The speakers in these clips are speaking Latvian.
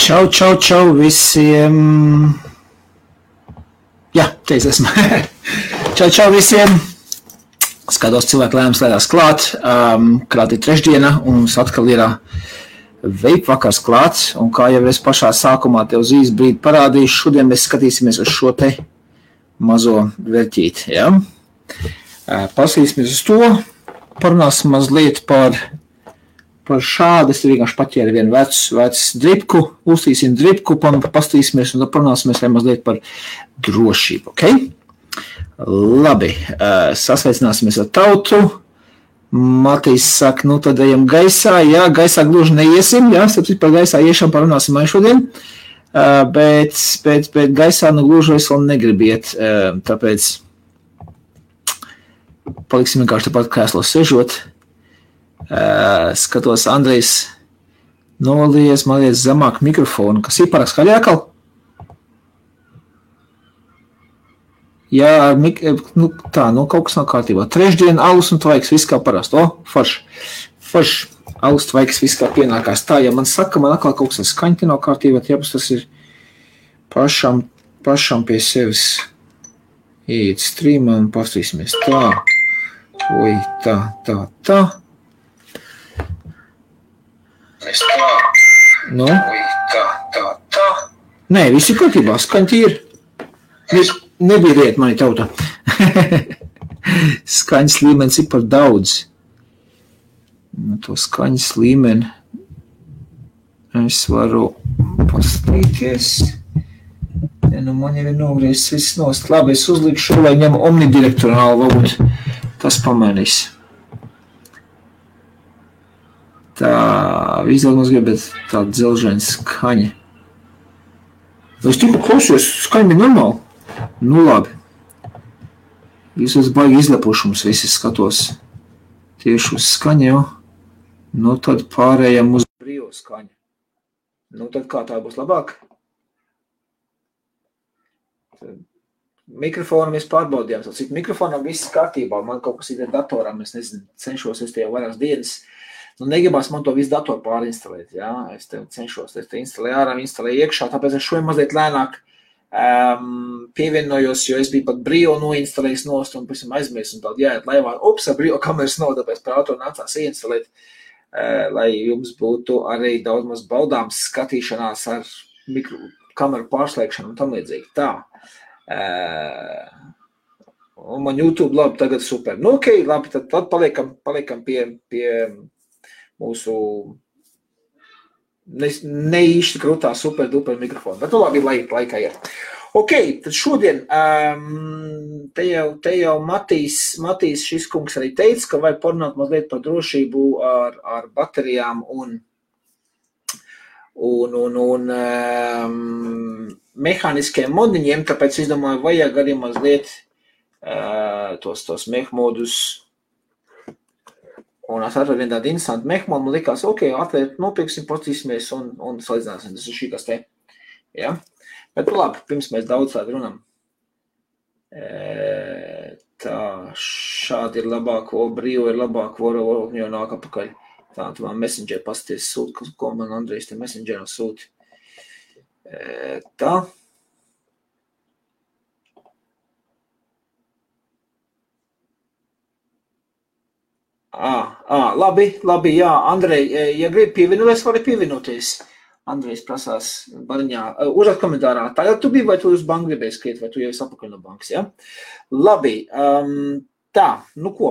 Čau visiem. Jā, te es esmu. Čau visiem. Skatos cilvēku lēnās klāt. Klāt ir trešdiena un mums atkal ir vape vakars klāts. Un kā jau es pašā sākumā tev uz īsu brīdi parādīšu, šodien mēs skatīsimies uz šo te mazo vērķīti. Ja? Pasīsimies uz to. Parunāsim mazliet par šādu. Es vienkārši paķēru vienu vecu dripku, uztīsim dripku, pastīsimies un parunāsimies mazliet par drošību, ok? Labi, sasveicināsimies ar tautu. Matīs saka, nu tad ejam gaisā, jā, gaisā gluži neiesim, jā, sapcīt par gaisā iešam parunāsim šodien, bet gaisā nu gluži es vēl negribiet, tāpēc paliksim vienkārši tāpat krēslos sežot. Skatos, Andrejs nolies, man liekas, zemāk mikrofonu, kas ir pārāk skaļi atkal? Jā, kaut kas nav kārtībā. Trešdien, alus un tvaiks, viss kā parasti. Forš, alus tvaiks, viss kā pienākās. Tā, ja man saka, man atkal kaut kas skaņti nav kārtībā, jāpēc tas ir pašam pie sevis iet streamā un pastīsimies. Tā, oi, tā. Nu? Tā. Nē, viss ir kārtībā, skaņti ir. Nebīriet mani tauta. Skaņas līmenis ir par daudz. To skaņas līmeni es varu pastīties. Nu, man jau ir nogriezts viss nost. Labi, es uzlikšu, lai ņem omnidirektorāli, varbūt tas pamainīs. Tā, vizdēļ mums gribēt tāda dzelžaina skaņa. Es tikko klausījos, skaņa bija normāli. Nu labi. Visos baigi izlepušums visi skatos tieši uz skaņu jau. Nu tad pārējām uz brīvo skaņu. Nu tad kā tā būs labāk? Mikrofonu mēs pārbaudījām. Cik mikrofonam viss kārtībā. Man kaut kas ir datoram, es nezinu, cenšos es tie vairākas dienas. Nu, negribās man to visu datoru pārinstalēt, jā, es te cenšos, es te instalēju ārā, instalēju iekšā, tāpēc es šodien mazliet lēnāk pievienojos, jo es biju pat brīvo noinstalējis nost un pēc tam aizmirsu un tādu jāiet laivā, ar brīvo kameras nav, tāpēc par auto nācās ieinstalēt, lai jums būtu arī daudz maz baudāms skatīšanās ar kameru pārslēgšanu un tam līdzīgi. Tā. Un man YouTube labi tagad super. Nu, ok, labi, tad paliekam pie mūsu neīšķi krūtā super duper mikrofonu. Bet labi, laikā ir. Ok, tad šodien te jau Matīs šis kungs arī teica, ka vajag parunāt mazliet par drošību ar baterijām un mehāniskiem modiņiem, tāpēc es domāju, vajag arī mazliet tos mehmodus. Un es atradu vienu tādu interesantu mehmodu, man likās, ok, atvērt, nopirksim, postīsimies un salīdzināsim, tas ir šī kas te. Ja? Bet labi, pirms mēs daudz tādu runam. Tā, šādi ir labāk, brīvo ir labāk, jau nāk apakaļ. Tā, tu man Messenger pasties sūti, ko man Andrejs te Messengerā sūti. Tā. Labi, jā, Andrej, ja gribi pievienoties, vari pievienoties. Andrejs prasās bariņā, uzrāt komentārā, tagad tu biji, vai tu uz banku gribēji skriet, vai tu jau esi apakaļ no bankas, ja? Labi, tā, nu ko,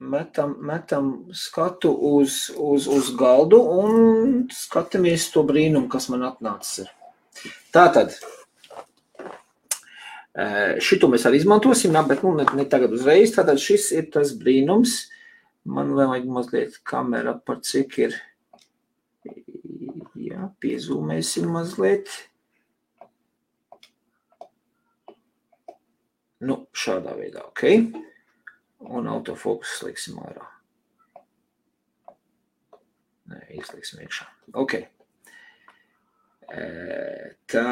metam skatu uz galdu un skatamies to brīnumu, kas man atnācis ir. Tātad, šito mēs arī izmantosim, bet ne tagad uzreiz, tātad šis ir tas brīnums. Man vajag mazliet kamera par cik ir, jā, piezūmēsim mazliet. Nu, šādā veidā, ok. Un autofokus sliksim ārā. Nē, izliksim iekšā. Ok. Tā.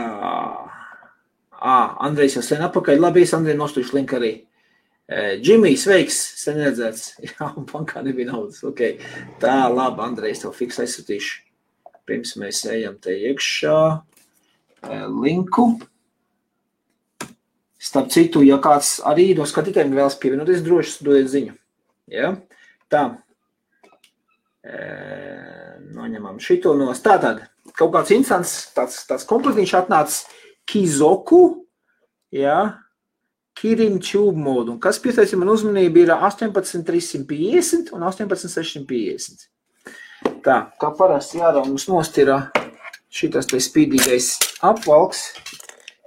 Andrejs jau sen apakaļ. Labi, es Andrej nostušu linku arī. Džimijs, sveiks, sen redzēts. Jā, un bankā nebija naudas. Ok. Tā, labi, Andrejs, tev fiks aizsūtīšu. pirms mēs ejam te iekšā linku. Starp citu, ja kāds arī no skatītājiem vēlas pievienoties, droši dodiet ziņu. Ja? Tā. Noņemam šito nos. Tātad, kaut kāds instants, tāds komplektiņš atnāca Kizoku, ja? Kirin Tube Mode. Un kas pieteica man uzmanību ir 18350 un 18650. Tā, kā parasti jādara mums nost ir šitas te spīdīgais apvalks.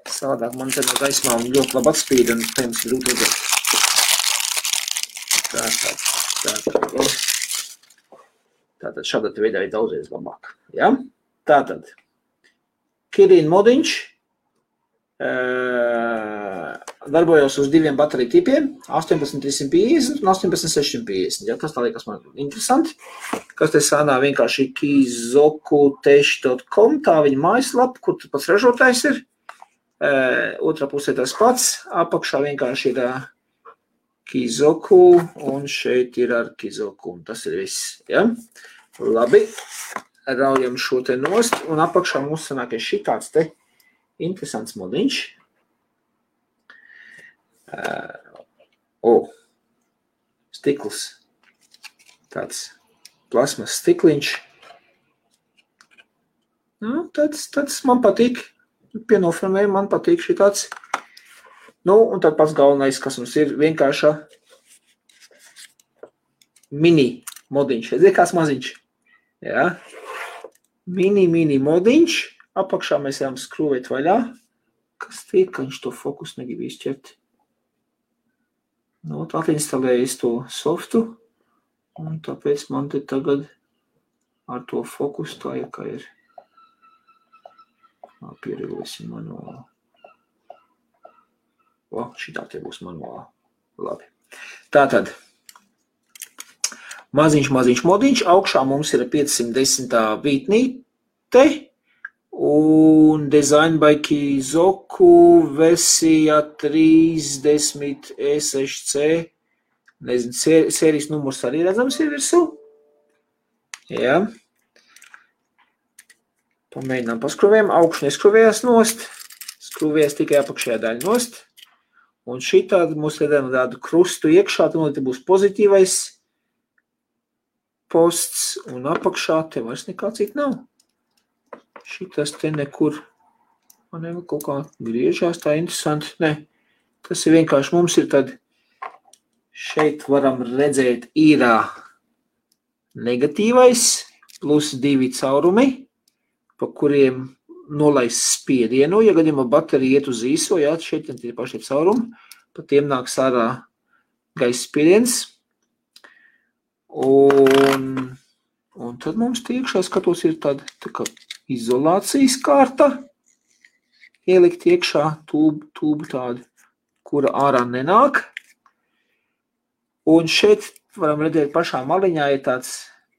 Savādāk man te no gaismām ļoti labi atspīd un pirms grūti redzēt. Tātad šādā veidā ir daudzreiz labāk. Ja? Tātad, Kirin modiņš darbojos uz diviem bateriju tipiem, 18350 un 18650. Ja? Tas tā liekas man interesanti. Kas te sānā vienkārši kizokutech.com, tā viņa mājaslapa, kur pats ražotājs ir. Otrā pusē tas pats, apakšā vienkārši ir Kizoku un šeit ir ar Kizoku, un tas ir viss, ja? Labi, raujam šo te nost, un apakšā mums sanāk šitāds te interesants modiņš. Stikls, tāds plasmas stikliņš. Nu, tāds man patīk. Pienofilmēju, man patīk šitāds. Nu, un tad pats galvenais, kas mums ir vienkārša mini modiņš. Redzi, kāds maziņš. Ja? Mini modiņš. Apakšā mēs ejam skrūvēt vaļā. Kas tiek, ka viņš to fokus negrib izķert. Nu, atlinstalēju to softu. Un tāpēc man te tagad ar to fokus tā ir, kā ir. Pieregosim manuāli. Šitā te būs manuāli. Labi. Tātad, maziņš modiņš. Augšā mums ir 510. vītnīte un Design by Kizoku versija 30 E6C. Nezinu, sērijas numurs arī redzams ir virsū. Jā. Pamēģinām paskruvējam, augšu neskruvējās nost, skruvējās tikai apakšējā daļa nost. Un šitādi mums redzam tādu krustu iekšā, tad būs pozitīvais posts un apakšā te vairs nekā cita nav. Šitas te nekur, man nevajag kaut kā griežās, tā interesanti. Ne, tas ir vienkārši mums ir tad, šeit varam redzēt ir negatīvais plus 2 caurumi. Pa kuriem nolaist spiedienu, ja gadījumā baterija iet uz īso, jā, šeit ir paši caurumi, pa tiem nāks ārā gaisa spiediens. Un tad mums iekšā skatos ir tāda tā kā izolācijas kārta, ielikt iekšā tūbu tādu, kura ārā nenāk. Un šeit varam redzēt pašā maliņā ir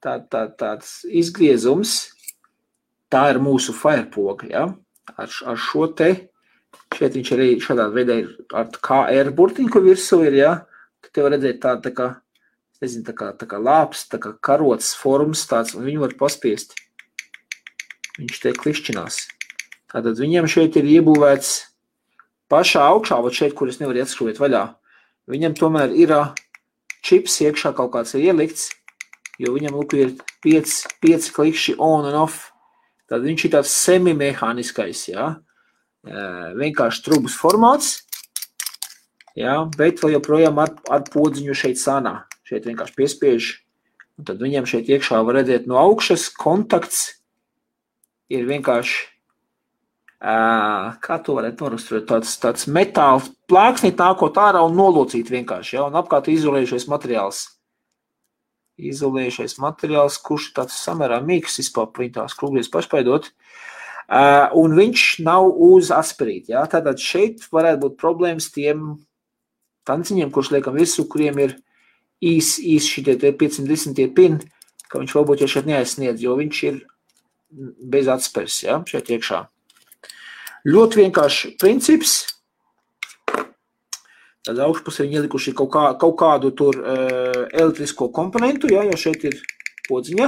tāds izgriezums. Tā ir mūsu firepoga, ja? Ar šo te, šeit viņš arī šādā veidā ir ar KR burtiņu, kur virsū ir, ja? Tad te var redzēt tā kā, nezinu, tā kā lāps, tā kā karots formas tāds, un viņu var paspiest. Viņš te klišķinās. Tātad viņam šeit ir iebūvēts pašā augšā, vat šeit, kur es nevaru ieskrūvēt vaļā. Viņam tomēr ir čips iekšā kaut kāds ir ielikts, jo viņam lūk ir 5 klikšķi on and off. Tad viņš ir tāds semimehāniskais, ja? Vienkārši trubas formāts, ja? Bet vēl joprojām ar podziņu šeit sānā. Šeit vienkārši piespiež. Un tad viņam šeit iekšā var redzēt no augšas kontakts ir vienkārši, kā to varētu noraksturēt, tāds metāla plāksnīt nākot ārā un nolocīt vienkārši, ja? Un apkārt izolējušais materiāls. Izolējušais materiāls, kurš tāds samērā mīgs vispār tās krūglies pašpaidot, un viņš nav uz asperīt. Ja? Tātad šeit varētu būt problēmas tiem tanciņiem, kurš liekam virsū, kuriem ir īs šitie 510 pin, ka viņš varbūt jau šeit neaizsniedz, jo viņš ir bez atspers, ja? Šeit iekšā. Ļoti vienkārši princips. Tad augšpusē viņi ielikuši kaut kādu tur elektrisko komponentu, ja, jo šeit ir podziņa.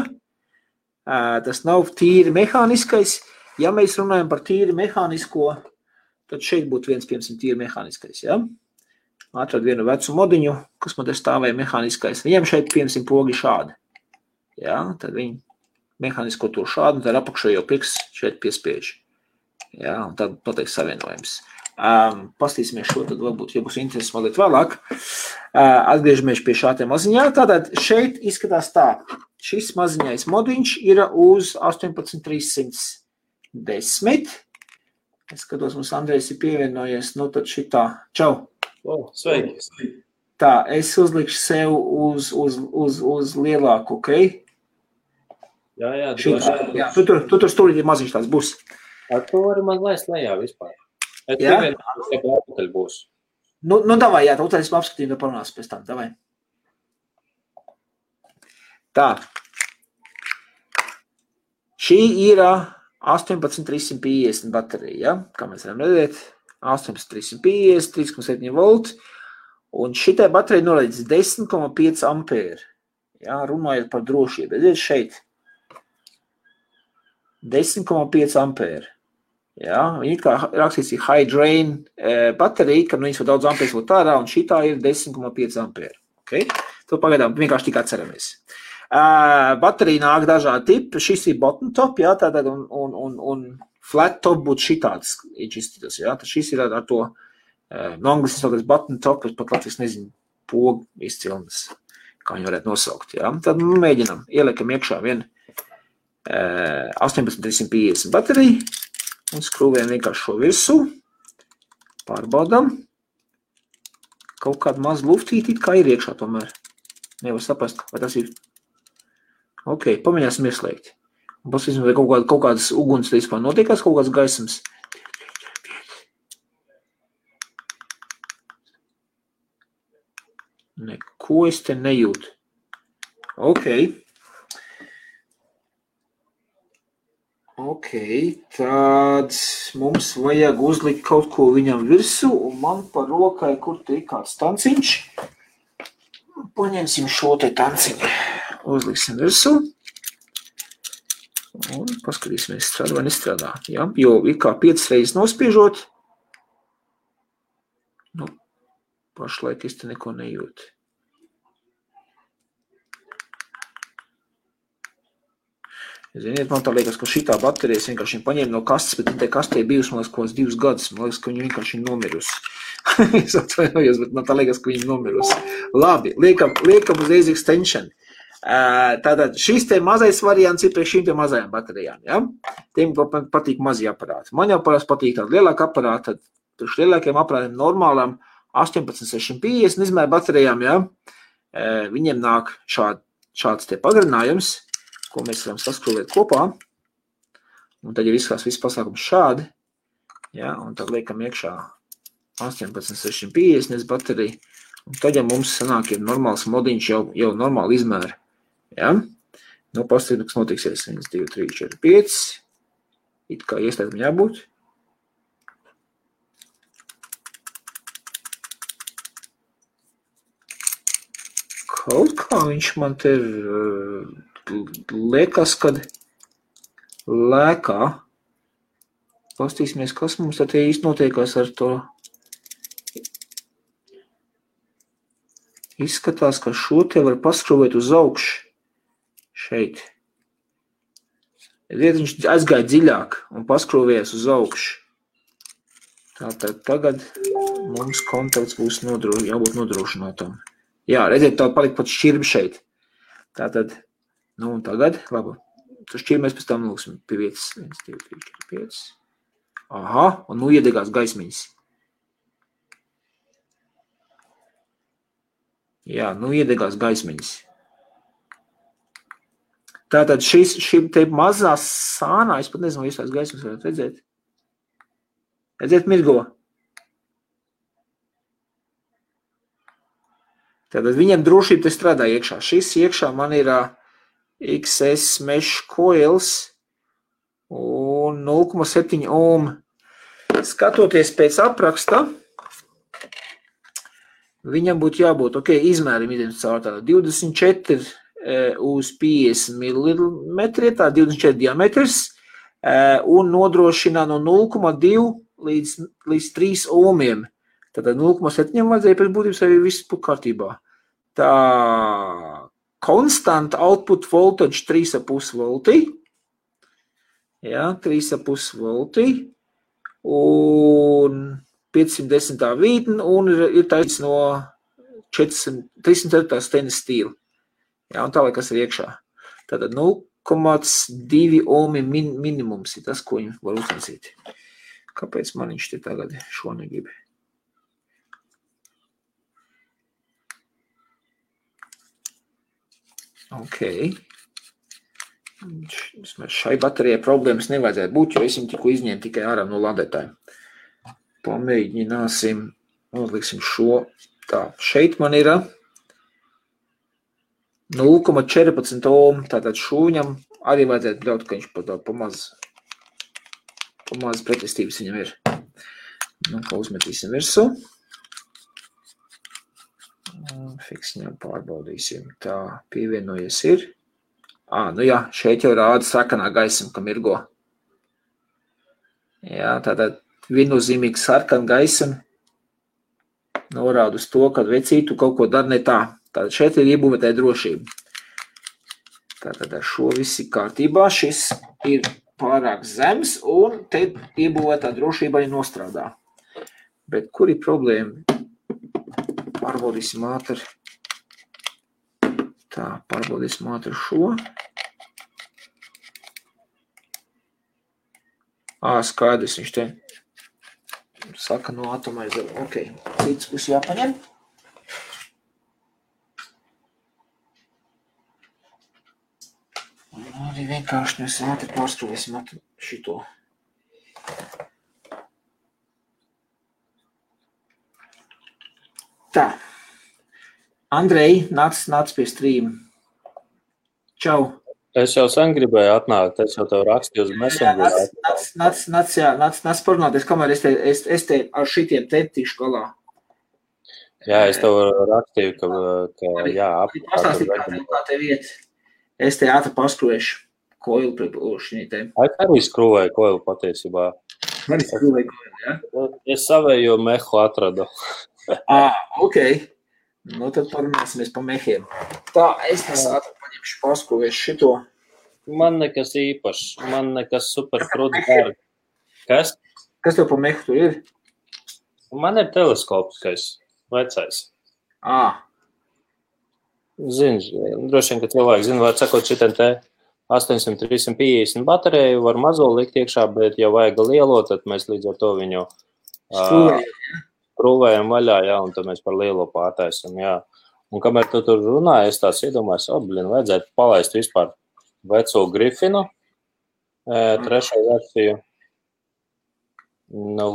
Tas nav tīri mehāniskais. Ja mēs runājam par tīri mehānisko, tad šeit būtu viens, piemēram, tīri mehāniskais, ja? Atrad vienu vecu modiņu, kas man te stāvēja mehāniskais. Viņam šeit, piemēram, pogi šādi. Ja? Tad viņi mehānisko to šādi, un tad apakšā jau pirksts šeit piespiež. Ja? Un tad noteikti savienojums. Pastīsimies šo, tad varbūt, ja būs interesi mazliet vēlāk. Atgriežamies pie šā te maziņā. Tātad šeit izskatās tā. Šis maziņais modiņš ir uz 18310. Es skatos, mums Andrejs ir pievienojies. Nu tad šitā. Čau. Sveiki. Tā, es uzlikšu sev uz lielāku, ok? Jā, tu tur stūrīt maziņš tāds būs. Ar to var man laist lejā vispār. Es pievienu būs. Nu, davai, jā, tad es apskatīju, tad parunās pēc tam, davai. Tā. Šī ir 18350 baterija, ja? Kā mēs varam redzēt, 18350, 3,7 volti, un šitai baterija norādīts 10,5 ampēri, ja? Runājot par drošību, redziet šeit, 10,5 ampēri. Ja, viņi kā rakstīts ir high drain baterija, kad viņas var daudz ampērs būt ārā, un šitā ir 10,5 ampēri. Okay? To pagaidām vienkārši tik atceramies. Baterija nāk dažādi tipi. Šis ir bottom top, ja, tātad, un flat top būtu šitāds izšķirtas. Ja. Šis ir ar to, no angļuiski saucas bottom top, es pat latvijas nezinu, pogu izcilnes, kā viņi varētu nosaukt. Ja. Tad mēģinam, ieliekam iekšā vienu 18350 bateriju. Un skrūvējam vienkārši šo virsū, pārbaudam. Kaut kāda maz luftīti, kā ir iekšā tomēr. Nevar saprast, vai tas ir. Ok, pamēģināsim ieslēgt. Un pasīsim, vai kaut kādas uguns te vispār notiekās, kaut kāds gaisams. Neko es te nejūtu. Ok. Ok, tad mums vajag uzlikt kaut ko viņam virsū, un man pa rokai, kur te ir kāds tanciņš. Paņemsim šo te tanciņu, uzliksim virsū, un paskatīsimies, strādā vai nestrādā. Ja? Jo ir kā 5 reizes nospiežot, nu, pašlaik es te neko nejūtu. Ziniet, man tā liekas, ka šitā baterijas vienkārši paņēma no kastes, bet te kastē bijusi, man liekas, kaut 2 gadus. Man liekas, ka viņa vienkārši ir nomirusi. Es atvainojos, bet man tā liekas, ka viņa ir nomirusi. Labi, liekam uzreiz extension. Tātad šis te mazais variants ir priekš šīm te mazajām baterijām. Ja? Tiem patīk mazie aparāti. Man jau parasti patīk tāda lielāka aparāta, tad priekš lielākiem aparātiem normālām 18650 izmēra baterijām, ja? Viņiem nāk šāds te pagarinājums, ko mēs varam saskrūvēt kopā. Un tad jau izskās viss pasākums šādi. Ja, un tad liekam iekšā 18650 bateriju. Un tad jau mums sanāk ir normāls modiņš jau normāli izmēra. Ja? Nu, pastāvīt, kas notiksies 1, 2, 3, 4, 5. It kā ieslēgtam jābūt. Kaut kā viņš man te liekas, kad lēkā. Pastīsimies, kas mums tad īsti notiekās ar to. Izskatās, ka šo te var paskrūvēt uz augšu. Šeit. Viņš aizgāja dziļāk un paskrūvējas uz augšu. Tātad tagad mums kontakts būs jābūt nodrošinātam. Jā, redziet, tā palika pat šķirbi šeit. Tātad, nu un tagad, labi, tu šķirbi mēs pēc tam lūksim pie vietas. 1, 2, 3, 4, 5. Aha, un nu iedegās gaismiņas. Jā, nu iedegās gaismiņas. Tātad šī te mazā sānā, es pat nezinu, vai tās gaismas varētu redzēt. Redzēt mirgo. Tātad viņam drošība te strādā iekšā. Šis iekšā man ir XS mesh coils un 0,7 ohm. Skatoties pēc apraksta, viņam būtu jābūt, izmērim idem caur tādu 24 uz 50 mm, tā 24 diametrs, un nodrošina no 0,2 līdz 3 ohmiem. Tātad 0,7 vajadzēja pēc būtības arī viss būtu kārtībā. Tā constant output voltage 3,5 volti. Jā, 3,5 volti. Un 510 vītne, un ir taisnīgs no 304 stainless steel. Jā, un tālāk, kas ir iekšā. Tātad 0,2 ohmi minimums ir tas, ko viņi var uztaisīt. Kāpēc man viņš te tagad šo negrib? Ok. Šai baterijai problēmas nevajadzētu būt, jo es viņu tikko izņēmu tikai ārā no ladētājiem. Pamēģināsim, uzliksim šo. Tā, šeit man ir 0,14 ohm, tātad šūņam arī vajadzētu ļaut, ka viņš pamaz pretestības viņam ir. Nu, ko uzmetīsim virsū. Fiksņām pārbaudīsim. Tā, pievienojies ir. Nu jā, šeit jau rāda sarkanā gaisma, ka mirgo. Jā, tātad viennozīmīgi sarkana gaisma norāda uz to, ka vecītu kaut ko dara ne tā. Tātad šeit ir iebūvētāja drošība. Tātad ar šo viss ir kārtībā. Šis ir pārāk zems un te iebūvētā drošība arī nostrādā. Bet kur ir problēma? Pārbaudīsim ātri. Tā, pārbaudīsim ātri šo. Skaidrs, viņš te saka no atomaiza. Ok, cits būs jāpaņem. Arī vienkārši mēs ātri pārskrūvēsim šito. Tā. Andrej, nāc pie stream. Čau. Es jau sen gribēju atnākt, es jau tev rakstīju uz Messengerā. Nāc parunāties, kamēr es te ar šitiem te tikšu galā. Jā, es tev rakstīju, ka jā, pastāstīt, kā tev iet. Es te ātri paskrūvēšu koilu priekš viņai te. Arī skrūvēju koilu patiesībā. Arī skrūvēju koilu, jā? Es savējo mehu atradu. Ok. Nu, tad parunāsimies pa mehiem. Tā, es ātri paņemšu paskrūvēšu šito. Man nekas īpašs, man nekas super krūti dārgi. Kas? Kas tev pa mehu tur ir? Man ir teleskopiskais, vecais. Zini, droši vien, ka cilvēki zina, var sakot, šitien te 800-350 bateriju var mazo likt iekšā, bet ja vajag lielo, tad mēs līdz ar to viņu skrūvējam vaļā, jā, un tad mēs par lielo pārtaisam, jā. Un kamēr tu tur runāji, es tās iedomājos, vajadzētu palaist vispār veco Grifinu, trešo versiju. Nu,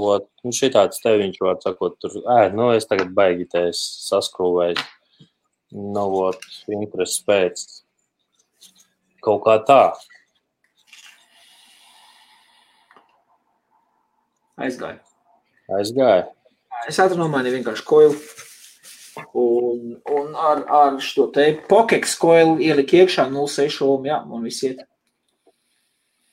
šitāds te viņš var sakot, tur, es tagad baigi te saskrūvēju. Nu, interesi pēc. Kaut kā tā. Aizgāja. Es ātri nomainīju vienkārši koilu. Un ar šo te Pokeks koilu ielika iekšā 0,6 ohm, jā, un viss iet.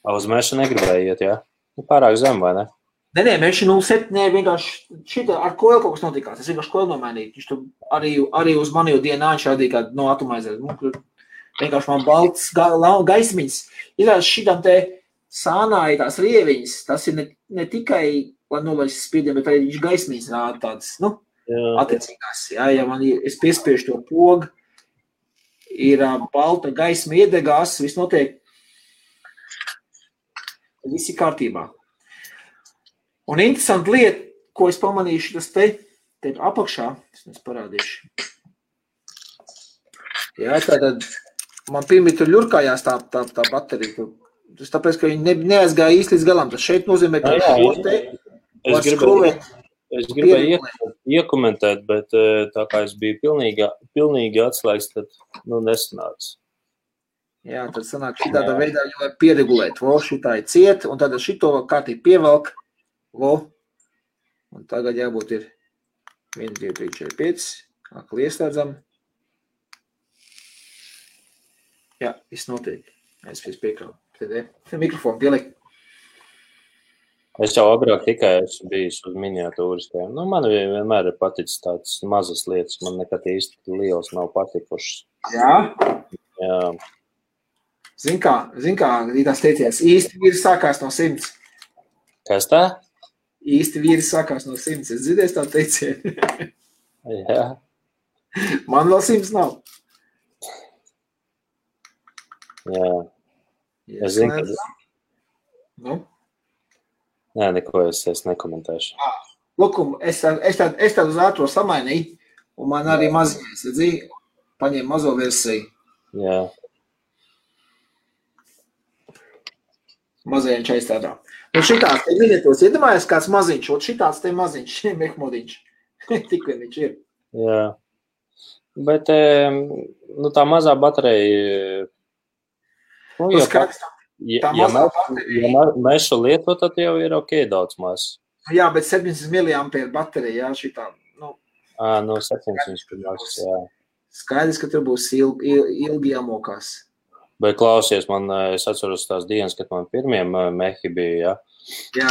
Uz meša negribēja iet, jā? Pārāk zem, vai ne? Nē, meša 0,7, vienkārši šitā ar koilu kaut kas notikās. Es vienkārši koilu nomainīju. Viņš tu arī uz mani jau dienā viņš rādīja kādu no atomaizēs. Vienkārši man balts gaismiņas. Izrādās šitam te sānāja tās rieviņas. Tas ir ne tikai, lai nolaist spiediem, bet arī viņš gaismiņas rāda tādas, attiecīgās. Jā, ja es piespiešu to pogu, ir balta gaisma iedegās, viss notiek. Viss ir kārtībā. Un interesanti lieta, ko es pamanīšu, tas te apakšā, es parādīšu. Jā, tātad man pirmie tur ļurkājās tā baterija. Tas tāpēc, ka viņi neaizgāja īsti līdz galam. Tas šeit nozīmē, ka šo te var skrūvēt. Es gribēju iekomentēt, bet tā kā es biju pilnīgi atslēgts, tad nesanāca. Jā, tad sanāk šitādā veidā, jo var pieregulēt. Šitā ir ciet, un tad šito kārtīgi pievelk. Un tagad jābūt ir 1, 2, 3, 4, 5. Akli ieslēdzam. Jā, viss notiek. Es piekrāvu. Te mikrofonu pielikt. Es jau agrāk tikai esmu bijis uz miniatūriskajām. Nu, man vienmēr ir paticis tādas mazas lietas. Man nekad īsti liels nav patikušas. Jā. Jā. Zin kā, tās teiciens, īsti vīri sākās no 100. Kas tā? Īsti vīri sākās no 100. Es dzirdēju tā teicienu. Jā. Man vēl 100 nav. Jā. Es zinu, ka... Nu? Nē, neko es nekomentēšu. Lukum, es tādu uz ātro samainīju, un man arī maziņais, redzīju, paņēmu mazo versiju. Jā. Mazajiem čais tādā. Un šitās te miniatūras, iedomājies kāds maziņš, un šitās te maziņš, mehmodiņš. Tik vien viņš ir. Jā. Bet, nu, tā mazā baterija... Nu, ja mēs šo lietu, tad jau ir ok daudz maz. Jā, bet 700 mAh baterija, jā, šitā, nu... No 700 mAh, jā. Skaidrs, ka tur būs ilgi jāmokās. Bet klausies, es atceros tās dienas, kad man pirmie mehi bija, jā.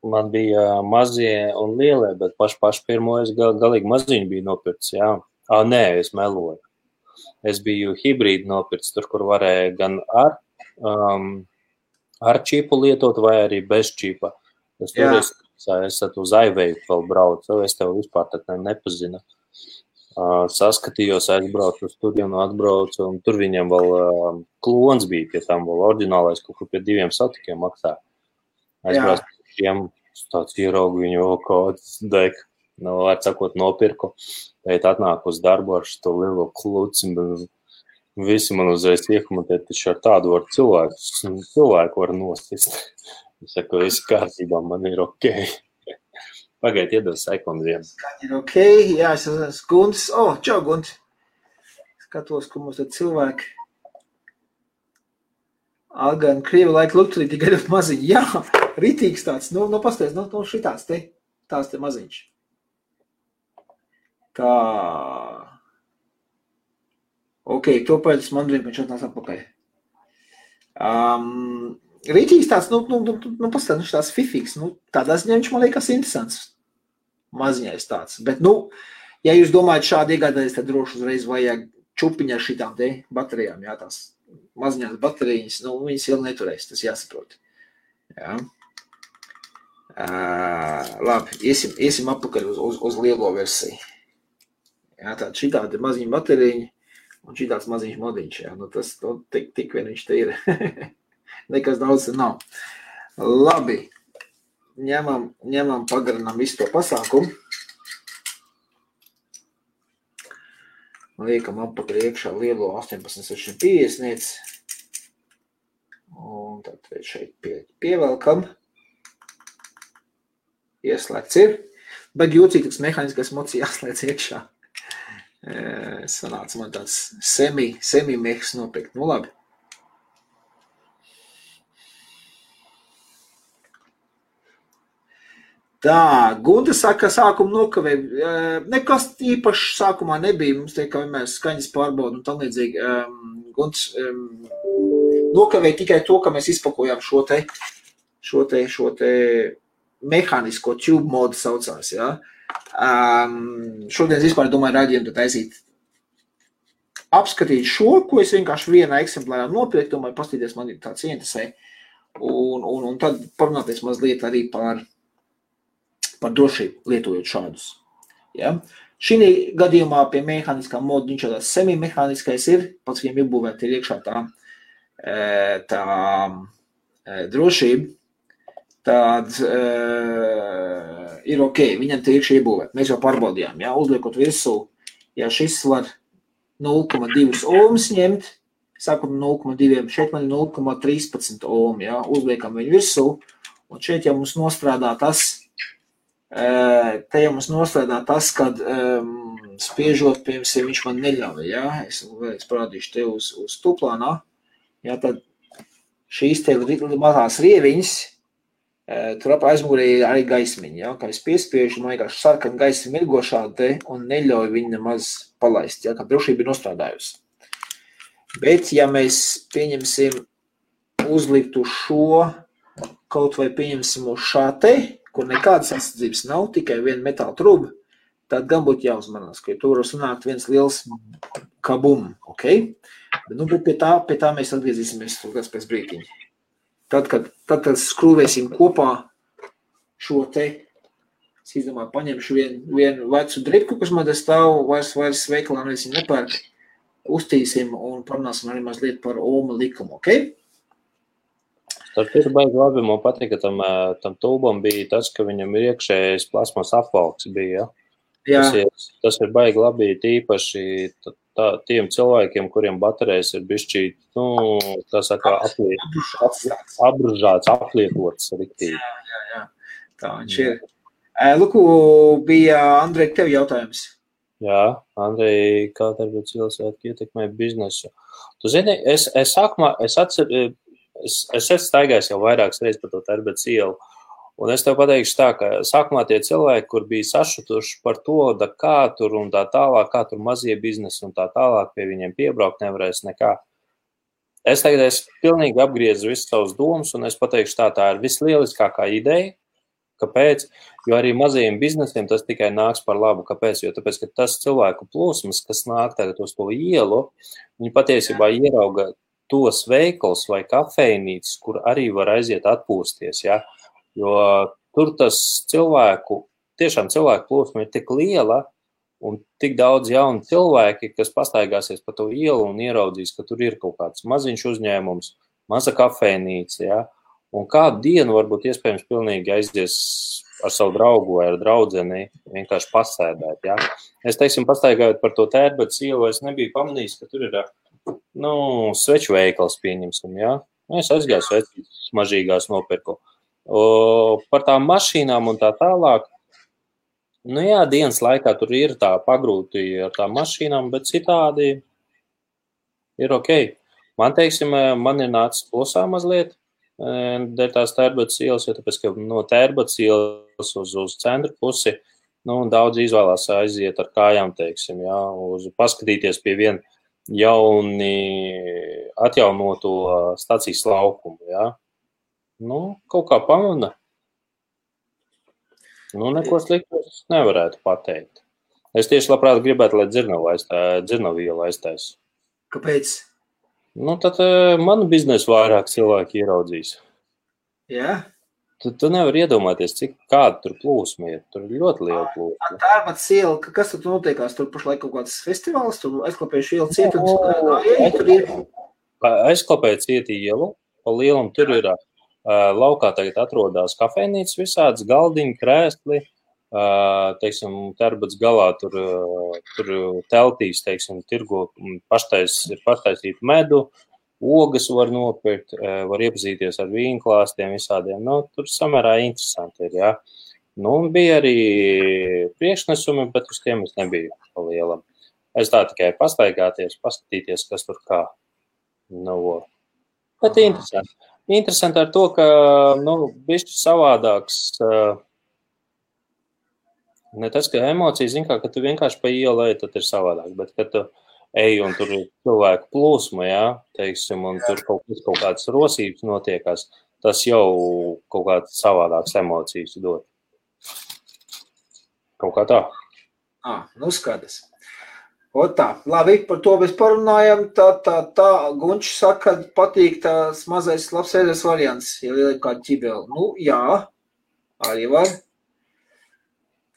Man bija mazie un lielie, bet paši pirmo es galīgi maziņu biju nopircis, jā. Nē, es meloju. Es biju hibrīdu nopircis, tur, kur varēja gan ar čipu lietot vai arī bez čipa. Es uz iVape vēl braucu, es tev vispār tad nepazinu. Saskatījos, aizbraucu uz turienu, atbraucu, un tur viņam vēl klons bija, pie tam vēl oriģinālais, kaut kur pie 2 satikiem maksā. Aizbraucu pie šiem, tāds ieraugu viņu vēl kāds dek, atsakot nopirku, tēt atnāk uz darbu ar šo lielo kluci, visi man uzreiz iekomentē, taču ar tādu var cilvēku var nosist. Es saku, viss kārtībā, man ir ok. Pagaid, iedod sekundi vienu. Ir ok, jā, es esmu Gunts. Čau, Gunt. Skatos, ko mums tad cilvēki. Algan, Krievi laika lukturī, tikai ļoti maziņi. Jā, ritīgs tāds. Nu pasties, šitās te. Tās te maziņš. Tā. Ok, to pēc man drīm, viņš atnās atpakaļ. Rītīgs tāds, pastāv, tāds fifīgs, tādā ziņā viņš man liekas interesants. Maziņais tāds. Bet, ja jūs domājat šādi iegādāties, tad droši uzreiz vajag čupiņā šitām te baterijām, jā, tās maziņās baterijas, viņas ilgi neturēs, tas jāsaprot. Jā. Labi, iesim apakaļ uz lielo versiju. Jā, tāda šitādi maziņa bateriņa un šitāds maziņš modiņš, jā, tas tik vien viņš te ir. Nekas daudz nav. Labi, ņemam pagarinām visu to pasākumu. Liekam apakaļ iekšā lielo 18,650. Un tad šeit pievelkam. Ieslēgts ir. Bet jūcīgs mehāniskais mods jāslēdz iekšā. Sanāca man tāds semi-mehs nopirkt. Labi. Tā, Gunta saka, ka sākumu nokavē. Nekas īpaši sākumā nebija. Mums tiek, kā vienmēr skaņas pārbauda un tam līdzīgi. Gunts nokavē tikai to, ka mēs izpakojām šo te mehānisko tube modu saucās, jā. Šodien vispār domāju raidījumu taisīt. Apskatīt šo, ko es vienkārši vienā eksemplārā nopirku, domāju, pastīties, man ir tāds ieinteresē. Un tad parunāties mazliet arī par drošību, lietojot šādus. Ja? Šī gadījumā pie mehāniskā moda viņš jau tāds semi-mehāniskais ir, pats viņam iebūvēt ir iekšā tā drošība, tad ir ok, viņam te iekšā iebūvēt. Mēs jau pārbaudījām, ja? Uzliekot virsū, ja šis var 0,2 ohms ņemt, sākam 0,2, šeit man ir 0,13 ohm, ja? Uzliekam viņu virsū, un šeit jau mums nostrādā tas, kad spiežot, piemēram, viņš man neļauj, ja? Es vēlreiz parādīšu te uz tuplānā, ja? Tad šīs te mazās rieviņas, tur ap aizmugurē ir arī gaismiņa, ja? Kā es piespiežu, man vienkārši sarkan gaismi mirgošā te un neļauj viņu nemaz palaist, ja? Kā drošība ir nostrādājusi. Bet, ja mēs pieņemsim uzliktu šo, kaut vai pieņemsim uz šā te, kur nekādas aizsardzības nav, tikai viena metāla truba, tad gan būtu jāuzmanās, ka tur var sanākt viens liels kabum, ok? Bet pie tā mēs atgriezīsimies pēc brītiņa. Tad, kad skrūvēsim kopā šo te, es izdomāju, paņemšu vienu vecu dripku, kas man te stāv, vairs veikalā nevis nepērk, uztīsim un parunāsim arī mazliet par Ohma likumu, ok? Tas ir baigi labi, man patīk, ka tam tūbam bija tas, ka viņam ir iekšējais plasmas apvalks bija, ja? Tas ir baigi labi, tīpaši tiem cilvēkiem, kuriem baterijas ir bišķī, tā saka, apbružāts, aplietots riktīgi. Jā. Tā viņš ir. Luku, bija Andrej, tev jautājums. Jā, Andrej, kā Tērbatas ielas ietekmē biznesu? Tu zini, es esmu staigājis jau vairākas reizes par to Tērbatas ielu, un es tev pateikšu tā, ka sākumā tie cilvēki, kur bija sašutuši par to, kā tur un tā tālāk, kā tur mazie biznesi un tā tālāk, pie viņiem piebraukt nevarēs nekā. Es tagad pilnīgi apgriezu visus savus domas, un es pateikšu tā ir vislieliskākā ideja. Kāpēc? Jo arī mazajiem biznesiem tas tikai nāks par labu. Kāpēc? Jo tāpēc, ka tas cilvēku plūsmas, kas nāk tagad uz to ielu, viņi patiesībā ierauga tos veikals vai kafejnīcas, kur arī var aiziet atpūsties, ja? Jo tur tas tiešām cilvēku plūsma ir tik liela un tik daudz jaunu cilvēki, kas pastaigāsies pa to ielu un ieraudzīs, ka tur ir kaut kāds maziņš uzņēmums, maza kafejnīca, ja? Un kādu dienu varbūt iespējams pilnīgi aizies ar savu draugu vai ar draudzeni vienkārši pasēdēt, ja? Es, teiksim, pastaigājot par to Tērbatas ielu, es nebiju pamanījis, ka tur ir, sveču veikals pieņemsim, ja? Es aizgāju svečus mažīgās nopirku. Par tām mašīnām un tā tālāk, jā, dienas laikā tur ir tā pagrūti ar tām mašīnām, bet citādi ir ok. Man, teiksim, man ir nācis plusā mazliet, dēļ tās Tērbatas ielas, jo tāpēc, ka no Tērbatas ielas uz centru pusi, daudz izvēlās aiziet ar kājām, teiksim, jā, paskatīties pie viena jauni atjaunoto stacijas laukumu, jā. Kaut kā pamana. Neko sliktu es nevarētu pateikt. Es tieši labprāt gribētu, lai dzirnavu ielu aiztais. Kāpēc? Tad manu biznesu vairāk cilvēki ieraudzīs. Jā? Tu nevari iedomāties, kāda tur plūsma ir. Tur ir ļoti liela plūsma. Tērbatas iela, kas tur notiekās? Tur pašlaik kaut kāds festivāls, tur aizklapējuši ielu cietums. Aizklapēja cieti ielu, pa lielam tur ir laukā tagad atrodās kafejnīcas visādas, galdiņi, krēsli, teiksim, Tērbatas galā tur teltīs, teiksim, tirgo paštaisīt medu, ogas var nopirkt, var iepazīties ar vīnklāstiem visādiem, tur samērā interesanti ir, jā. Un bija arī priekšnesumi, bet uz tiem es nebiju pa lielam. Es tā tikai pastaigāties, paskatīties, kas tur kā. Bet interesanti. Interesanti ar to, ka, bišķi savādāks, ne tas, ka emocijas, zin kā, ka tu vienkārši pa ielu ej, tad ir savādāk, bet, kad tu ej un tur ir cilvēku plūsma, jā, teiksim, un tur kaut kādas rosības notiekās, tas jau kaut kāds savādāks emocijas dod. Kaut kā tā. Skaties. Tā, labi, par to mēs parunājam, tā, Gunčs saka, ka patīk tās mazais labsēdēs variants, ja lieliem kādu ķibeli. Jā, arī var.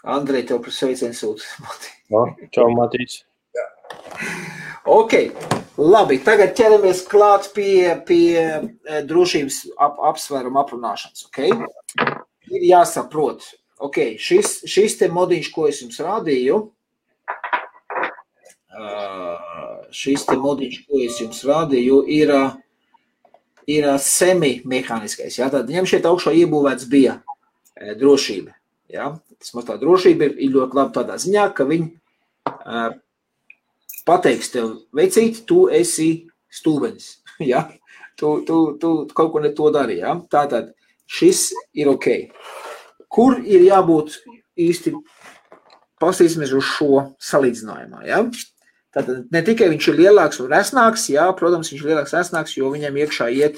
Andrej, tev par sveicienu sūta. Čau, Matīts. Ok, labi, tagad ķeramies klāt pie drošības apsvērumu aprunāšanas, ok? Ir jāsaprot, ok, šis te modiņš, ko es jums rādīju, ir semi-mehāniskais. Ja? Tad viņam šeit augšā iebūvēts bija drošība. Ja? Tas tā drošība ir ļoti labi tādā ziņā, ka viņi pateiks tev, veicīt, tu esi stūbenis. Ja? Tu kaut ko ne to dari. Ja? Tātad šis ir ok. Kur ir jābūt īsti, pasīsimies uz šo salīdzinājumā. Ja? Tātad ne tikai viņš ir lielāks un resnāks, jā, protams, viņš ir lielāks resnāks, jo viņam iekšā iet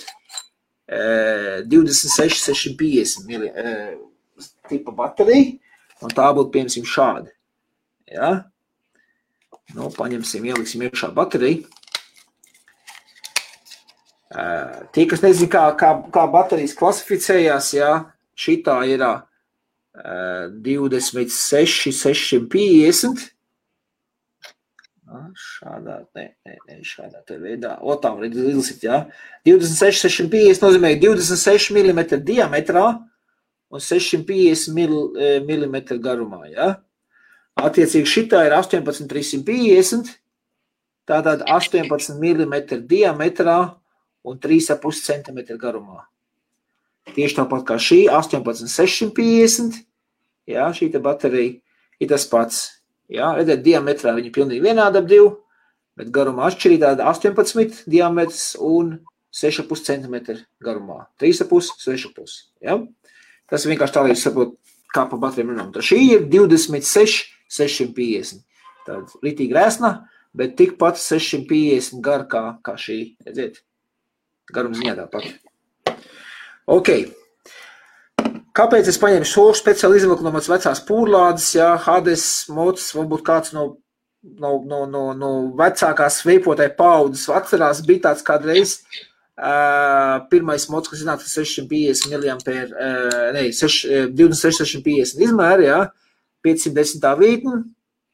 26-650 tipa baterija, un tā būtu, piemēram, šādi. Jā. Nu, paņemsim, ieliksim iekšā bateriju. Tie, kas nezin, kā baterijas klasificējās, jā, šitā ir 26-650. Šādā te veidā. Tā var izlasīt, jā. 26-650 nozīmē 26 mm diametrā un 650 mm garumā, jā. Attiecīgi šitā ir 18-350, tātad 18 mm diametrā un 3,5 cm garumā. Tieši tāpat kā šī 18-650, jā, šī te baterija ir tas pats. Jā, redzēt, diametrā viņi pilnīgi vienādi ap divu, bet garumā atšķirī tāda 18 diametrs un 6,5 cm garumā. 3,5, 6,5. Ja? Tas vienkārši tā, lai jūs saprot, kā pa baterijām runām. Tā šī ir 26-650. Tāda ritīgi rēsna, bet tikpat 650 gar kā šī. Redziet, garums ziņā tāpat. Ok. Kāpēc es paņēmu šo speciāli izvilku no mans vecās pūrlādes, jā, Hades, mods, varbūt kāds no vecākās veipotāja paudzes atcerās, bija tāds kādreiz pirmais mods, kas iznāca 650 miliampēru, 26-650 izmēri, jā, 510 vītni,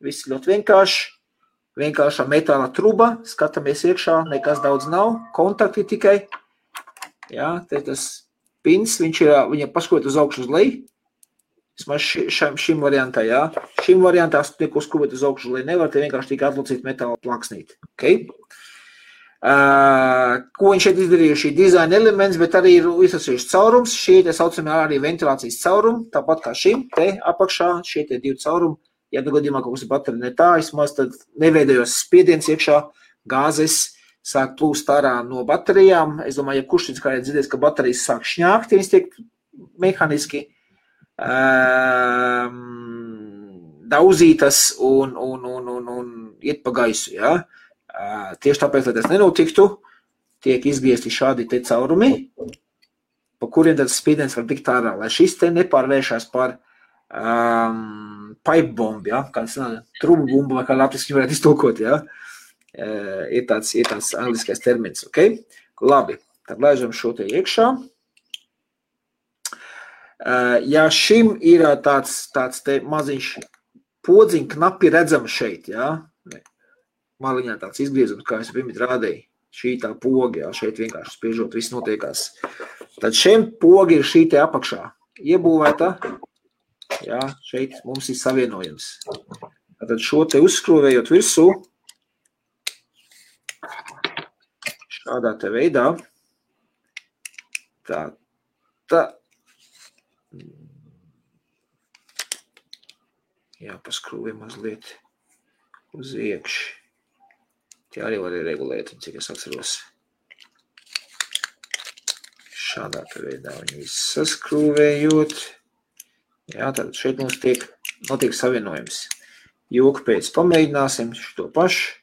viss ļoti vienkāršā metāla truba, skatāmies iekšā, nekas daudz nav, kontakti tikai, jā, te tas pins, viņa paskot uz augšu uz leju, vismaz šim variantā, jā. Šim variantā neko skrūvēt uz augšu uz leju nevar, te vienkārši tikai atlocīt metāla plaksnīt. Okay? Ko viņš šeit izdarīja, šī dizaina elements, bet arī ir izsasījuši caurums, šie te saucamie arī ventilācijas caurumi, tāpat kā šim, te apakšā, šie te divi caurumi, ja nu gadījumā kaut kas ir baterija ne tā, vismaz tad neveidojos spiediens iekšā, gāzes, sāk plūst ārā no baterijām. Es domāju, ja kurš kā ir dzirdējis, ka baterijas sāk šņākt, ja viņas tiek mehaniski dauzītas un iet pa gaisu. Ja? Tieši tāpēc, lai tas nenotiktu, tiek izgriezti šādi te caurumi, pa kuriem tad spiediens var tikt ārā, lai šis te nepārvēršās par pipe bombu, ja? Kāds trubu bumbu, vai kā latviski varētu iztulkot, ja? Ir tāds angliskais termins, ok? Labi, tad laižam šo te iekšā. Ja šim ir tāds te maziņš podziņ knapi redzams šeit, ja? Maliņā tāds izgriezums, kā es pirmīt rādīju. Šī tā poga, ja? Šeit vienkārši spiežot, viss notiekās. Tad šiem pogi ir šī te apakšā iebūvēta. Ja? Šeit mums ir savienojums. Tad šo te uzskrūvējot virsū, šādā te veidā, tā, jāpaskrūvē mazliet uz iekši. Tie arī var regulēt, cik es atceros. Šādā te veidā viņi visu saskrūvējot. Jā, tad šeit mums notiek savienojums. Joku pēc pamēģināsim šo pašu,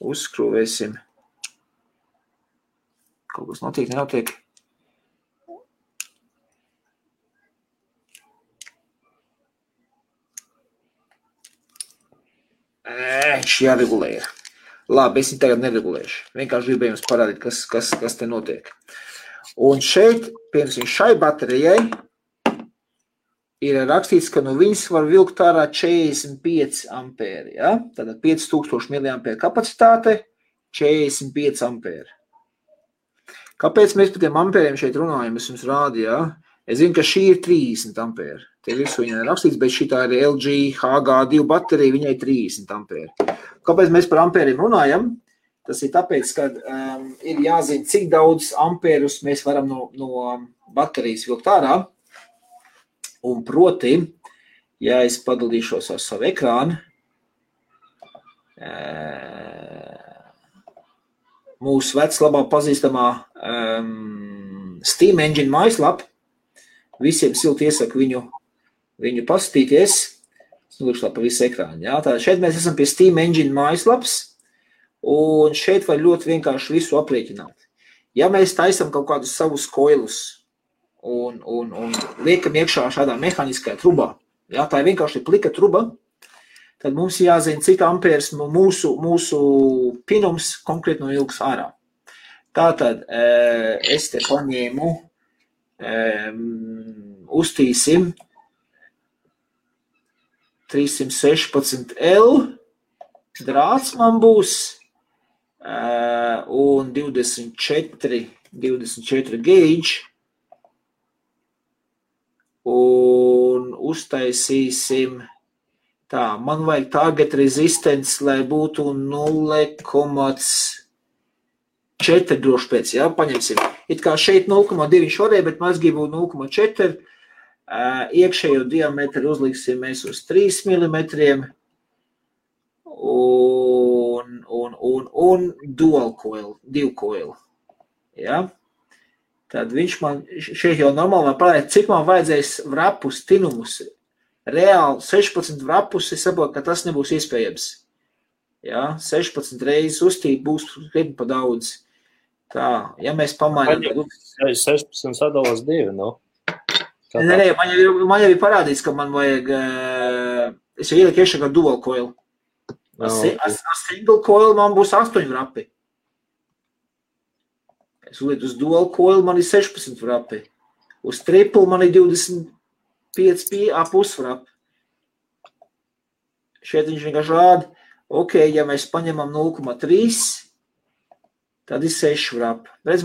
uzskrūvēsim. Kaut kas notiek, nenotiek. Viņš jāregulē ir. Labi, es viņu tagad neregulēšu. Vienkārši gribēju jums parādīt, kas te notiek. Un šeit, piemēram, šai baterijai ir rakstīts, ka no viņas var vilkt ārā 45 ampēri. Ja? Tātad 5000 mAh kapacitāte, 45 ampēri. Kāpēc mēs par tiem ampēriem šeit runājam? Es jums rādu, ja? Es zinu, ka šī ir 30 ampēri. Te visu viņai rakstīts, bet šitā ir LG HG2 baterija, viņai 30 ampēri. Kāpēc mēs par ampēriem runājam? Tas ir tāpēc, ka ir jāzina, cik daudz ampērus mēs varam no baterijas vilkt ārā. Un proti, ja es padalīšos ar savu ekrānu, mūsu labāk pazīstamā Steam Engine mājaslapa, visiem silti iesaku viņu paskatīties. Es nolūkšu pa visu ekrānu. Jā. Tātad šeit mēs esam pie Steam Engine mājaslapas. Un šeit var ļoti vienkārši visu aprēķināt. Ja mēs taisam kaut kādus savus koilus un liekam iekšā šādā mehāniskajā trubā, ja, tā ir vienkārši plika truba, tad mums jāzina, cik ampērs mūsu pinums konkrēti no ilgas ārā. Tātad es te paņēmu, uztīsim 316L, drāts man būs, un 24 gauge, un uztaisīsim tā, man vajag target resistance, lai būtu 0,4 droši pēc, jā, paņemsim. It kā šeit 0,2 šorē, bet mēs gribu 0,4. Iekšējo diametru uzliksim mēs uz 3 mm un dual coil, 2 coil. Ja? Tad viņš man šeit jau normāli parāda, cik man vajadzēs vrapus, tinumus. Reāli 16 vrapus, es saprotu, ka tas nebūs iespējams. Ja? 16 reizes uztīt būs krietni pa daudz. Tā, ja mēs pamainām... 16 sadalās 2, no? Nē, man jau ir parādīts, ka man vajag... Es jau ieliku iekšā kā dual coil. Single coil man būs 8 vrapi. Es uzlieku uz dual coil, man ir 16 vrapi. Uz triple man ir 25 pusvrapi. Šeit viņš vienkārši rāda, ok, ja mēs paņemam 0,3, tad ir 6 vrapi. Redz,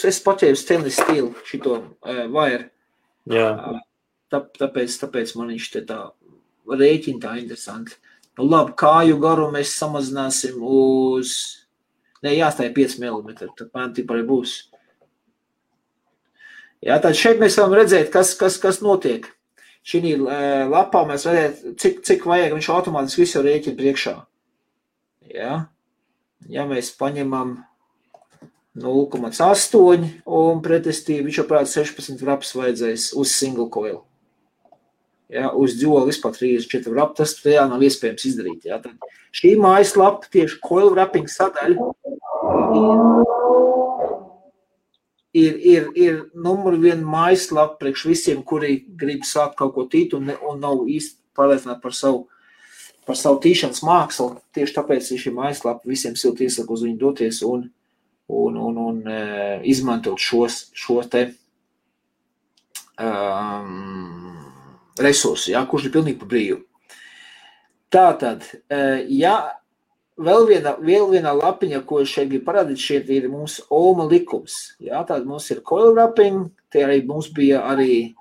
es paķēru stainless steel šito wire. Jā. Tāpēc man viņš te tā rēķina tā interesanti. Nu labi, kāju garu mēs samazināsim uz... Nē, jāstāja 5 mm, tad man tipā arī būs. Jā, tad šeit mēs varam redzēt, kas notiek. Šī lapā mēs redzēt, cik vajag, viņš automātiski visu rēķina priekšā. Jā. Ja mēs paņemam 0,8 un pretestī, viņš jau prāt 16 vraps vajadzēs uz single coil. Ja, uz dual vispār 34 wrap, tas reāli nav iespējams izdarīt. Ja. Tad šī mājaslapa, tieši coil wrapping sadaļa, ir numur 1 mājaslapa priekš visiem, kuri grib sākt kaut ko tīt un nav īsti pārliecināti par savu tīšanas mākslu. Tieši tāpēc ir šī mājaslapa visiem silti iesaku uz viņu doties un izmantot šo te resursu, ja, kurš ir pilnīgi pa brīvu. Tātad, ja vēl viena lapiņa, ko es šeit gribu parādīt, šeit ir mums Ohma likums. Ja, tātad mums ir coil wrapping, te arī mums bija arī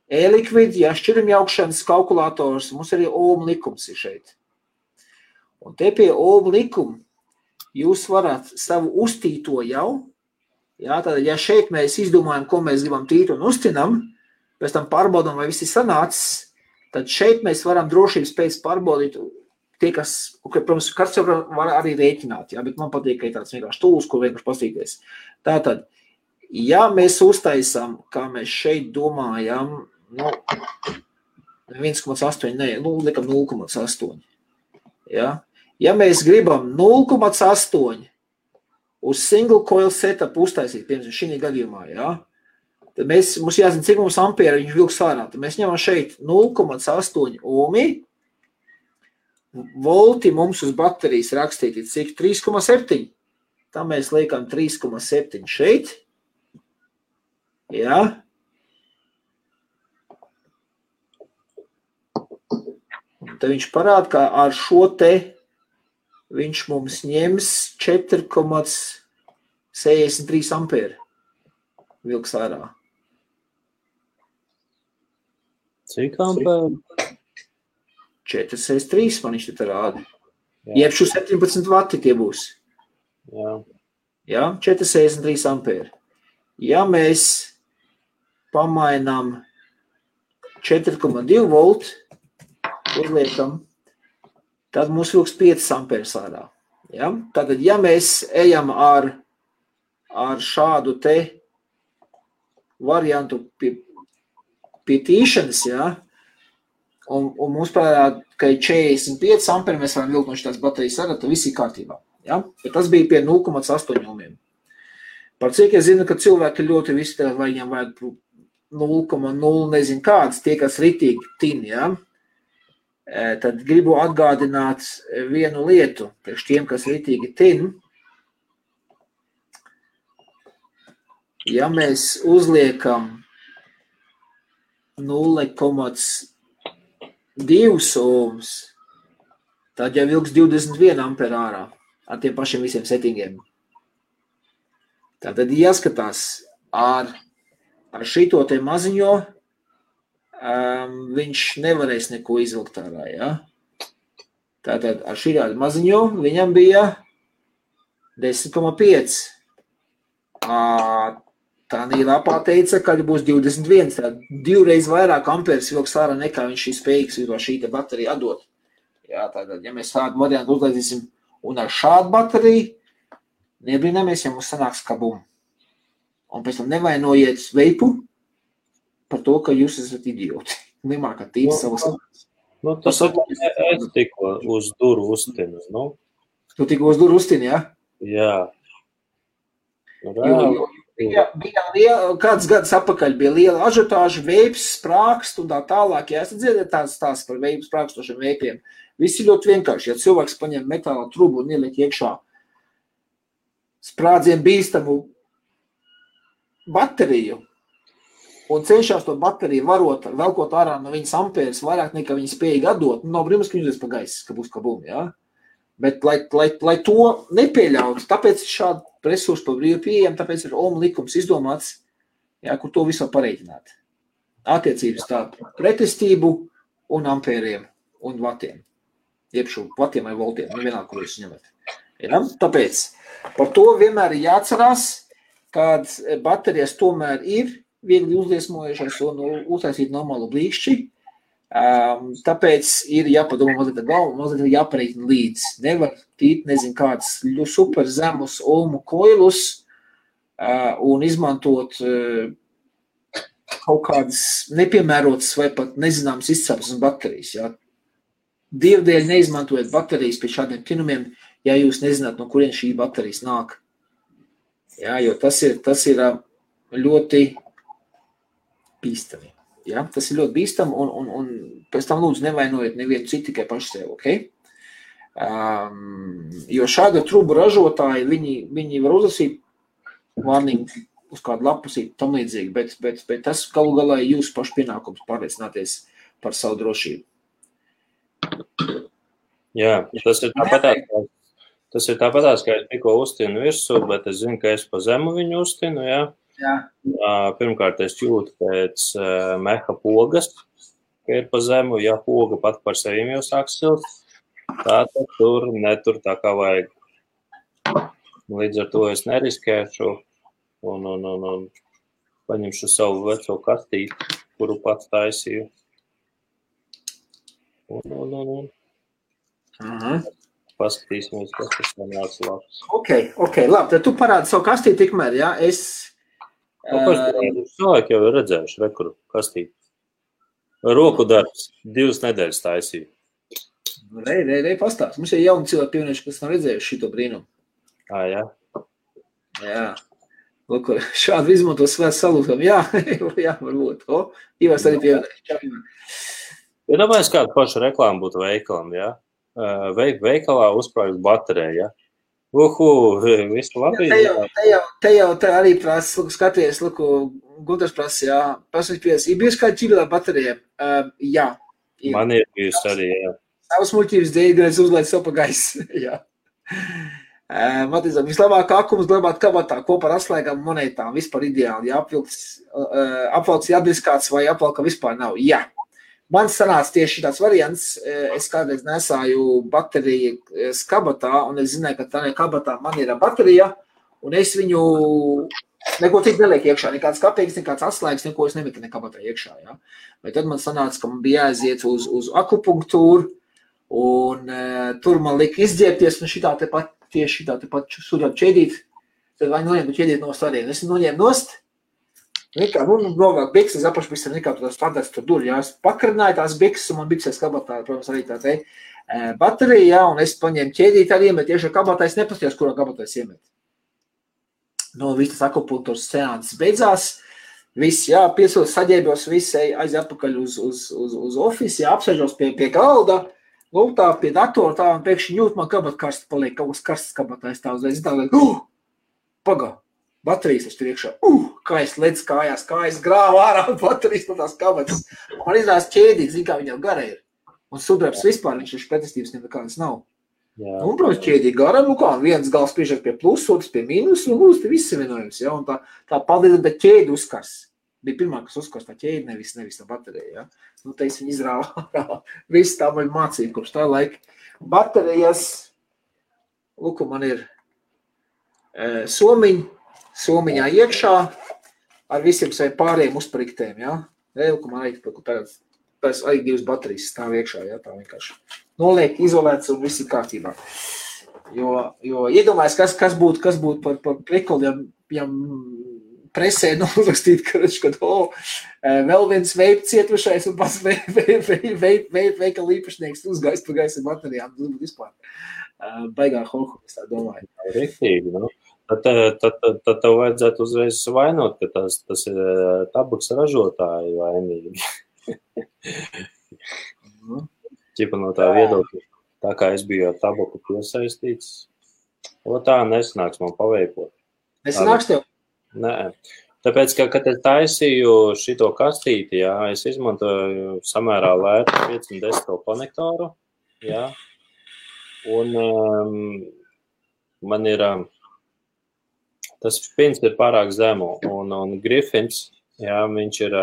e-liquid, ja, šķirumjaukšanas kalkulators, mums arī Ohma likums ir šeit. Un te pie Ohma likuma jūs varat savu uztīto jau, ja, tātad, ja šeit mēs izdomājam, ko mēs gribam tīt un uztinam, pēc tam pārbaudām, vai viss ir sanācis, tad šeit mēs varam drošības pēc pārbaudīt tie, kas, protams, kāds jau var arī rēķināt, ja, bet man patīk, ka ir tāds vienkārši tūls, ko vienkārši pastīties. Tātad, ja mēs uztaisām, kā mēs šeit domājam, 1,8, ne, likam 0,8. Ja? Ja mēs gribam 0,8 uz single coil setup uztaisīt, piemēram, šī gadījumā, ja? Tad mums jāzina, cik mums ampēra viņš vilks ārā. Tad mēs ņemam šeit 0,8 ohmi. Volti mums uz baterijas rakstīti cik 3,7. Tā mēs liekam 3,7 šeit. Jā. Un tad viņš parāda, ka ar šo te viņš mums ņems 4,63 ampēra vilks ārā. Cik ampēru? 4,63 man viņš te rāda. Jeb šo 17 vati tie būs. Jā. Jā, 4,63 ampēri. Ja mēs pamainām 4,2 volt, uzliekam, tad mums vilks 5 ampērs ārā. Ja? Tātad, ja mēs ejam ar šādu te variantu pie tīšanas, ja, un mums parādā, ka ir 45 amperi, mēs varam vilkt no šitās baterijas ārā, tad viss ir kārtībā. Ja? Bet tas bija pie 0,8 ohmiem. Par cik es zinu, ka cilvēki ļoti visi tev, vai viņam vajag 0,0 nezinu kādas, tie, kas ritīgi tin, ja? Tad gribu atgādināt vienu lietu, priekš tiem, kas ritīgi tin. Ja mēs uzliekam 0,2 ohms, tad jau ilgs 21 ampere ārā ar tiem pašiem visiem settingiem. Tātad jāskatās ar šito te maziņo, viņš nevarēs neko izvilkt ārā, ja? Tātad ar šī maziņo viņam bija 10,5. Tā lapā teica, ka būs 21, tad 2 reiz vairāk amperes vilks ārā nekā viņš ir spējīgs šī te baterija atdot. Jā, tātad, ja mēs tādu variantu uzlaidīsim un ar šādu bateriju, nebrīnamies, ja mums sanāks kabum. Un pēc tam nevainojiet veipu par to, ka jūs esat idioti. Nemākat tīri savas lietas. Tas es tikko uz duru uztinu, nu? Tu tikko uz duru uztini, ja? Jā. Bija kāds gads apakaļ bija liela ažiotāža, veips, sprākst un tā tālāk. Ja esat dzirdēt tās par veipu sprākstošiem veipiem. Visi ļoti vienkārši. Ja cilvēks paņem metāla trubu un ieliek iekšā sprādzien bīstamu bateriju un cenšās to bateriju varot, velkot ārā no viņas amperes vairāk nekā viņa spējīgi atdot, nav brīnums, ka viņas pa gaisu, ka būs kabum, ja? Bet, lai to nepieļautu, tāpēc šādi resursi pa brīvu pieejam, tāpēc ir Ohma likums izdomāts, ja, kur to visu var pareiķināt. Attiecības tā pretestību un ampēriem un vatiem. Iepšu vatiem vai voltiem, nevienā, kur jūs ņemat. Ja? Tāpēc par to vienmēr ir jāatcerās, kad baterijas tomēr ir viegli uzliesmojušās un uztaisīt normālu blīkšķi. Tāpēc ir jāpadomā mazliet galvu, mazliet jāpareiķina līdz. Nevar tīt, nezinu, kādas super zemus ohmu koilus un izmantot kaut kādas nepiemērotas vai pat nezināmas izcelsmes baterijas. Ja? Dievdēļ neizmantojiet baterijas pie šādiem tinumiem, ja jūs nezināt, no kurien šī baterijas nāk. Ja, jo tas ir ļoti bīstami. Ja? Tas ir ļoti bīstami un pēc tam lūdzu nevainojiet nevienu citu tikai paši sev, ok? Jo šāda trubu ražotāji, viņi var uzlasīt warning uz kādu lapusīt tam līdzīgi, bet tas galu galā ir jūsu pašu pienākums pārliecināties par savu drošību. Jā, tas ir tāpatās, ka es tikko uztinu virsū, bet es zinu, ka es pa zemu viņu uztinu, jā. Jā. Pirmkārt, es jūtu pēc meha pogas, ka ir pa zemu, ja poga pat par sevim jau sāk silt, tātad netur tā kā vajag. Līdz ar to es neriskēšu un paņemšu savu veco kastīti, kuru pats taisīju. Paskatīsimies, kas tas sanāca labs. Ok, labi, tad tu parādi savu kastīti tikmēr, jā, es... Cilvēki jau ir redzējuši rekuru kastīti. Roku darbs, 2 nedēļas taisīju. Rei, pastāst. Mums ir jauni cilvēki pievienojuši, kas nav redzējuši šito brīnumu. Jā? Jā. Lūk, šādu izmanto svēts salūtam. Jā, varbūt. Ivars arī pievienojuši. Ja domājies, kādu pašu reklāmu būtu veikalam, jā? Veikalā uzkrājas baterija, ja? Visu labi. Te jau arī prasa, skaties, Gunārs prasa, jā, prasa, ir bijusi kāda ķīrīlā baterija? Jā. Man ir bijusi arī, jā. Savas muļķības dēļ, gan es uzlaidu savu pa gaisu, jā. Matizam, vislabāk akums glabāt kabatā kopā ar atslēgām monētām, vispār ideāli, ja apvalks jādiskāts vai apvalka vispār nav, jā. Man sanāca tieši tāds variants, es kādreiz nesāju bateriju kabatā, un es zināju, ka tā kabatā man ir baterija, un es viņu neko tik nelieku iekšā, nekāds kapeiks, nekāds atslēgas, neko es nemetu kabatā iekšā. Ja? Bet tad man sanāca, ka man bija jāaiziet uz akupunktūru, un tur man lika izģērbties, un tieši šitā te pat sūdāt ķēdīt, tad vai noņēmu ķēdīt nost arī. Es noņēmu nost, Novāk bikses apašbikses nekā tās standarts tur dur, jā. Es pakarināju tās bikses, un man bikses kabatā, protams, arī tā te baterija, jā, un es paņēmu ķēdīti arī iemet, tieši ar kabatā es nepastījos, kurā kabatā es iemet. Viss tas akupunktūras seanses beidzās, viss, jā, piesūs, saģēbjos, viss aiz atpakaļ uz office, jā, apsēžos pie galda, tā pie datora, tā, un pēkšņi jūt, man kabat karsts paliek, kaut kas karsts kabatā, es tā uzreiz, pagā. Baterijas es tur iekšā, kā es ledz kājās, kā es grāvu ārā baterijas no tās kabatas. Man izdās ķēdīt, zin, kā viņam gara ir. Un sudrabs vispār, viņš pretestības nekādas nav. Jā. Un, protams, ķēdīt gara, viens gals priežāk pie plus, otrs pie mīnus, un lūdzu, viss vienojums, jā. Un tā paldies, bet ķēdi uzkars. Bija pirmā, kas uzkars tā ķēdi, nevis tā baterija, jā. Te es viņu izrāvu, viss tā man mācīja, kopš tā laika. Baterijas, lūk, man ir somiņā iekšā ar visiem saviem pārējiem uzpriktēm, jā. Lūk, man arī divas baterijas stāv iekšā, jā, tā vienkārši. Noliek, izolēts un viss ir kārtībā. Jo iedomājas, kas būtu par prikoli, ja presē nolastīt, kad vēl viens veip cietušais un pats veikala īpašnieks uzgaist pa gaisa baterijām. Tas būtu vispār baigā holku, es tā domāju. Riktīgi, nu. Tad tev vajadzētu uzreiz vainot, ka tas ir tabaks ražotāji vainīgi. Ķipa no tā viedokļa, tā kā es biju ar tabaku piesaistīts, tā nesanāks man paveikot. Nesanāks tev? Nē. Tāpēc, ka, kad es taisīju šito kastīti, jā, es izmantoju samērā lētu 510 konektoru, jā, un man ir... Tas pins ir pārāk zemu, un Griffins, jā, viņš ir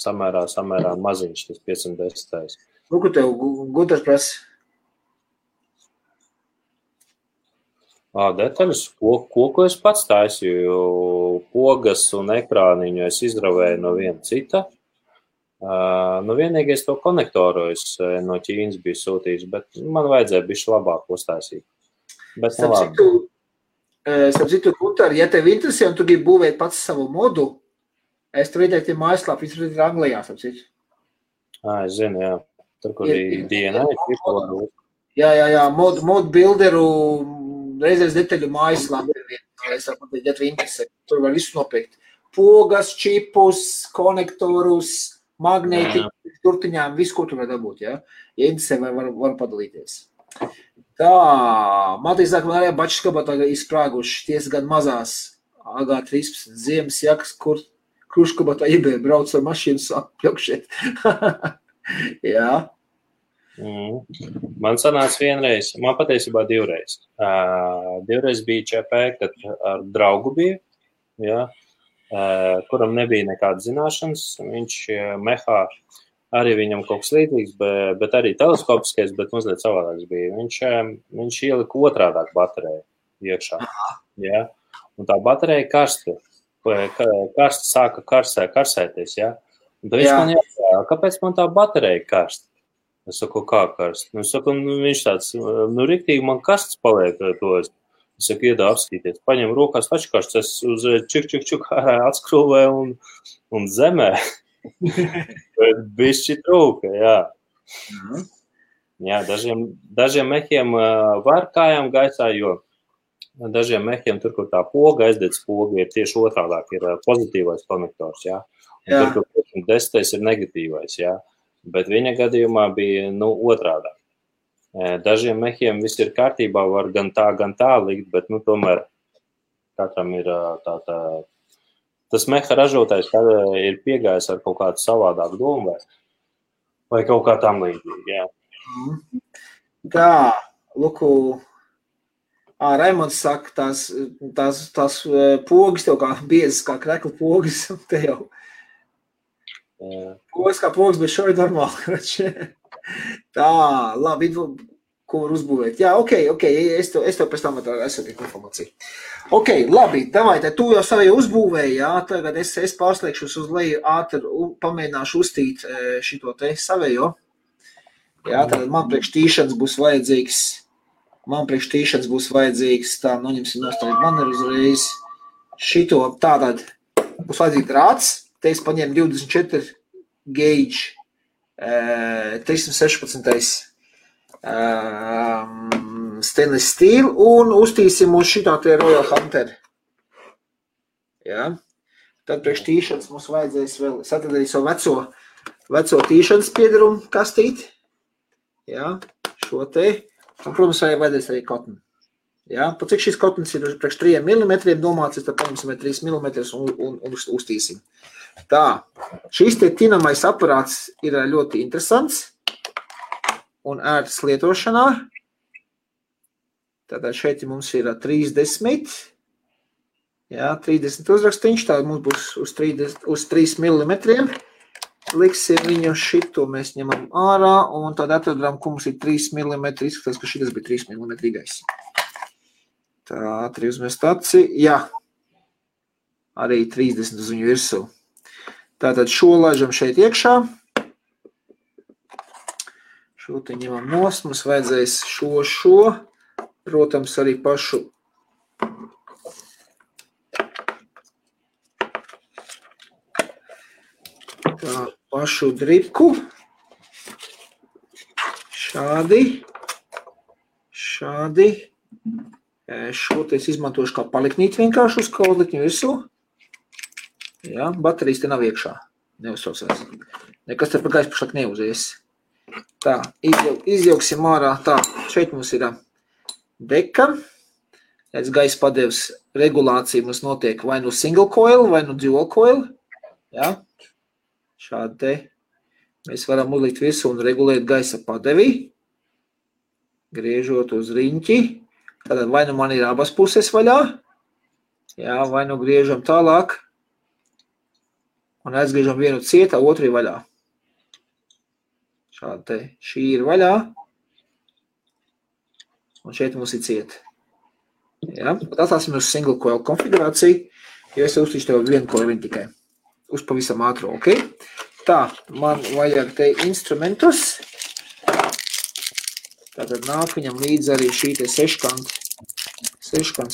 samērā maziņš, tas 510. Ko tev gudrs prasa? Detaļas, ko es pats taisīju, pogas un ekrāniņu es izravēju no viena cita. Vienīgais to konektoru es no Ķīnas biju sūtījis, bet man vajadzēja bišķi labāk uztaisīt. Bet Starp citu, Gunter, ja tev interesē un tu gribi būvēt pats savu modu, es tur ieteikti mājaslāpu, viņš ir Anglijā, starp citu. Es zinu, jā. Tur, kur ir DNA. Jā, modu builderu reizēs detaļu mājaslāpu. Es varu pateikt, ja tev interesē, tur var visu nopirkt. Pogas, čipus, konektorus, magnēti, turtiņām, visu, ko tu var dabūt, jā. Ja interesē, var padalīties. Tā, man tīsāk, man arī bačas kabatā izsprāguši ties gan mazās AG13 ziemas jakas, kur kruškabatā iebēja brauc ar mašīnu apļaukšiet. Jā. Man sanāca vienreiz, man patiesībā divreiz. Divreiz bija ČP, kad ar draugu bija, jā, kuram nebija nekādas zināšanas, viņš mehā. Arī viņam kaut kas līdzīgs, bet arī teleskopiskais, bet mazliet savādāks bija. Viņš ielika otrādāk bateriju iekšā. Ja? Un tā baterija karsta sāka karsēties. Ja? Un tad viņš man jāsaka, kāpēc man tā baterija karsta? Es saku, kā karsta? Es saku, viņš tāds, riktīgi man karsts paliek to. Es saku, iedā apskatīties. Paņem rokās tačkarsts, es uz čuk atskrūvēju un zemē. Bišķi trūka, jā. Jā, dažiem mehiem var kājām gaisā, jo dažiem mehiem tur, kur tā poga, aizdedz poga, ir tieši otrādāk, ir pozitīvais konektors, jā. Un tur, kur 10. ir negatīvais, jā. Bet viņa gadījumā bija, otrādāk. Dažiem mehiem viss ir kārtībā, var gan tā likt, bet, tomēr katram ir tas meha ražotājs ir piegājis ar kaut kādu savādāku domu vai kaut kā tam līdzīgi, jā. Tā, Luku, Raimonds saka, tās pogas tev kā biezas, kā krekla pogas, te jau. Pogas kā pogas, bet šo ir normāli. Tā, labi, ko var uzbūvēt. Jā, ok, es tev pēc tam esmu informāciju. Ok, labi, davai, tu jau savēju uzbūvēji, jā, tagad es pārslēgšos uz leju ātri, pamēģināšu uztīt šito te savējo. Jā, tad man priekš tīšanas būs vajadzīgs, tā, noņemsim nostāju maneru uzreiz. Šito tātad būs vajadzīgi drāts, te es paņēmu 24 gauge 316 stainless steel un uztīsim uz šitā te Royal Hunter. Ja? Tad priekš tīšanas mums vajadzēs vēl, es atradīju savu veco tīšanas piedarumu kastīt. Ja? Šo te. Un, protams, vajadzēs arī kotni. Ja? Pat cik šis kotnis ir priekš 3 mm domāts, tad paņemsim 3 mm un uztīsim. Tā, šis te tinamais aparāts ir ļoti interesants un ērts lietošanā. Tātad šeit mums ir 30, jā, 30 uzrakstiņš, tātad mums būs uz 3 mm. Liksim viņu šito, mēs ņemam ārā un tad atradām, ka mums ir 3 mm, izskatās, ka šitas bija 3 mm gais. Tā, ātri uzmest aci, jā, arī 30 uz viņu virsū. Tātad šo laižam šeit iekšā. Šo te ņemam nost, mums vajadzēs šo, protams, arī pašu dripku. Šādi. Šo te es izmantošu kā paliknīt vienkārši uz kaudlikņu virsū. Jā, baterijas te nav iekšā. Neuzsaucās. Nekas te par gaisu pašlāk neuzies. Tā, izjauksim ārā. Tā, šeit mums ir deka. Redz, gaisa padevs regulācija mums notiek vai nu single coil, vai nu dual coil. Jā, šādi te. Mēs varam uzlikt visu un regulēt gaisa padevi. Griežot uz riņķi. Tātad vai nu man ir abas puses vaļā. Jā, vai nu griežam tālāk. Un aizgriežam vienu cietā, otru ir vaļā. Šādi te. Šī ir vaļā. Un šeit mums ir cieta. Ja? Atstāsim uz single coil konfigurāciju, jo es uztīšu tev vienu coiliņu tikai. Uz pavisam ātro, ok? Tā, man vajag te instrumentus. Tātad nāk viņam līdz arī šī te seškant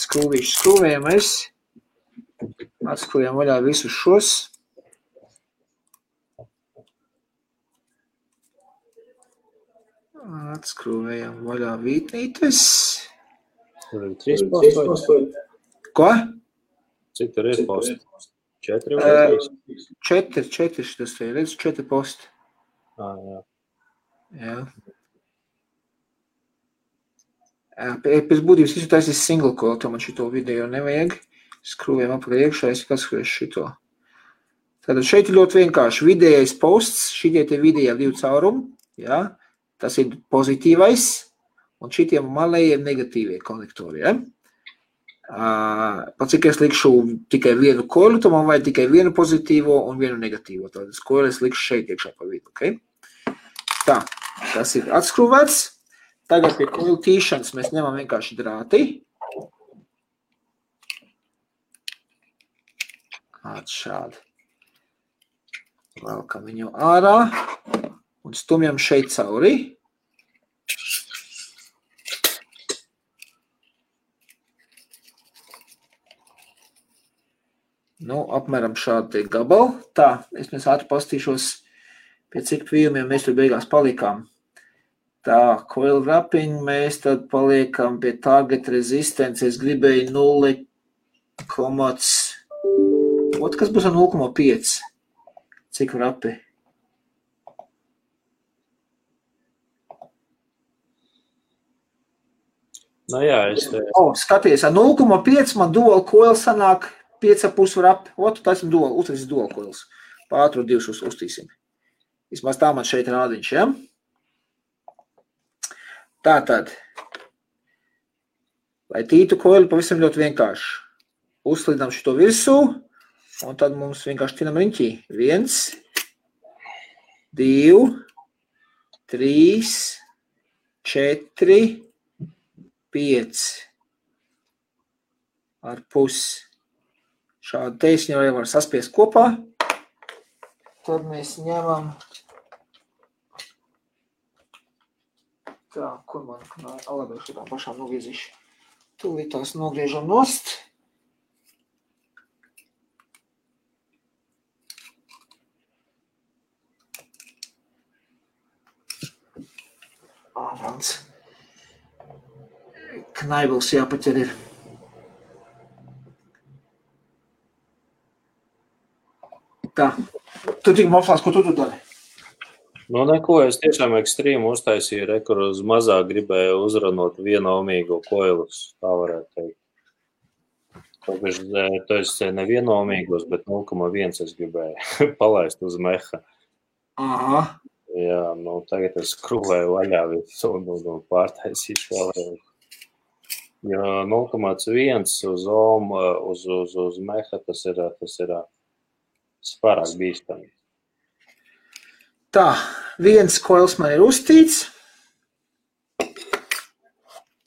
skrūvīšu skrūvējamies. Atskrūvējam vaļā visus šos. Atskrūvējam vaļā vītnītes. Tur ir 3 posti. Ko? Cik tur ir posti? 4 vai 3? 4 šitas te, redz, 4 posti. Jā. Jā. Pēc būtības visu taisīs single coil, to man šito video nevajag. Skrūvējam apakaļ iekšā, es atskruvēšu šito. Tātad šeit ir ļoti vienkārši vidējais posts, šitie te vidējā 2 caurumi, jā. Tas ir pozitīvais, un šitiem malējiem negatīvie konektori, ja? Pat cik es likšu tikai vienu koilu, to man vajag tikai vienu pozitīvo un vienu negatīvo. Tātad koilu es likšu šeit iekšā pa vidu, ok? Tā, tas ir atskrūvēts. Tagad pie koilu tīšanas mēs ņemam vienkārši drāti. Šādi. Velkam viņu ārā un stumjam šeit cauri. Nu, apmēram šādi gabali. Tā, es mēs ātri pastīšos, pie cik pījumiem mēs tur beigās palikām. Tā, coil wrapping, mēs tad paliekam pie target resistance. Es gribēju 0, kas būs ar 0,5? Cik wrappi? Nu jā, es te... Skaties, ar 0,5 man dual coil sanāk 5,5 wrappi. Otu, tas ir uztaisīs dual coils. Pātru 2 uztīsim. Vismaz tā man šeit rādiņš, ja? Tātad, lai tītu koili pavisam ļoti vienkārši. Uzslidam šito virsū, un tad mums vienkārši tinam riņķī. 1, 2, 3, 4, 5 ar pusi. Šādu teisņu jau var saspiest kopā. Tad mēs ņemam... Tā, kur man alabēju šitām pašām nogriezīšu. Tūlīt tās nogriežam nost. naivils jāpaķer ir. Tā. Tu tik mopslās, ko tu dari? Nu, neko, es tiešām ekstrīmu uztaisīju, kur uz mazāk gribēju uzranot vienomīgo koilus, tā varētu teikt. To es nevienomīgos, bet 0,1 es gribēju palaist uz meha. Aha. Jā, nu, tagad es skrūvēju vaļā visu un pārtaisīšu vēlreiz. Jo 0,1 uz ohm, uz meha tas ir pārāk bīstami. Tā, viens koils man ir uztīts.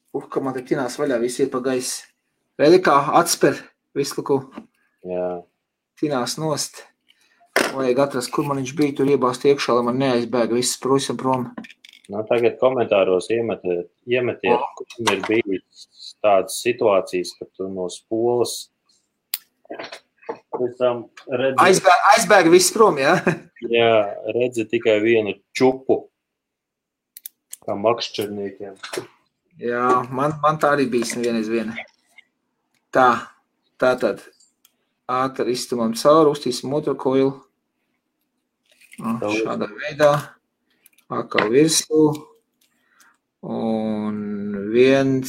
Kā man te tinās vaļā, visi ir pa gaisi. Redzi, kā atsper visu, ko tinās nost. Vajag atrast, kur man viņš bija, tur iebāzt iekšā, lai man neaizbēga viss prusam prom. Nu, tagad komentāros iemetiet, kur ir bijis tādas situācijas, ka tu no spolas aizbēga viss prom, jā? Jā, redzi tikai vienu čupu, kā makšķerniekiem. Jā, man tā arī bijis nevienreiz viena. Tātad ātri iztumam cauri, uztīsim otru koilu. Šādā veidā. Atkal virsū. Un 1,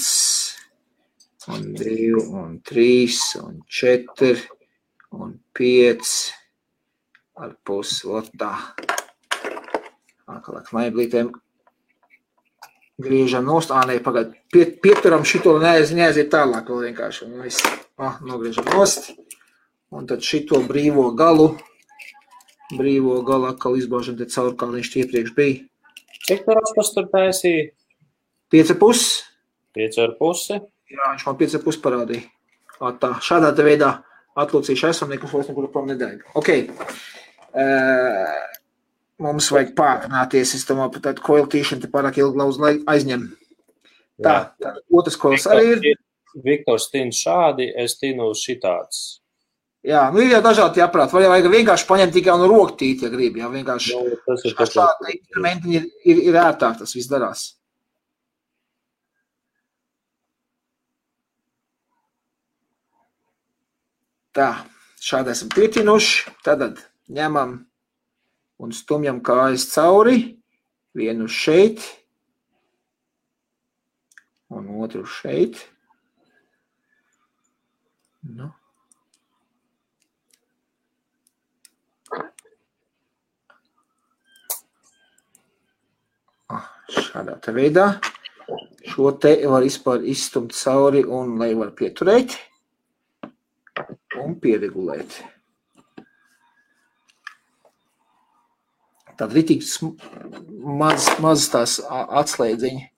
un 2, un 3, un 4, un 5 ar pusi. Tā. Atkal ar knaiblītēm. Griežam nost, pagaid, pieturam šito neaiziet tālāk vēl vienkārši. Nogriežam nost. Un tad šito brīvo galu atkal izbāžam te caur, kā viņš iepriekš bija. Cik tas tur taisīja? 5,5. 5,5? Jā, viņš man 5,5 parādīja. Tā, šādā te veidā atlūcīšu esam, nekas vairs nekur prom nedēļ. Ok. Mums vajag pātrināties, es domāju, par tādu koilu tīšanu te pārāk ilgi lauz aizņem. Tā, otrs koils arī ir. Viktors tin šādi, es tinu šitāds. Jā, nu ir jau dažādi jāprāt. Vajag vienkārši paņemt tikai un roktīt, ja grib. Jā, vienkārši šādi instrumenti ir ērtāk, tas viss darās. Tā, šādi esam pietinuši. Tad ņemam un stumjam kājas cauri, vienu šeit un otru šeit. Nu. Šādā te veidā. Šo te var izstumt cauri un lai var pieturēt un pieregulēt. Tad ritīgi maz tās atslēdziņi.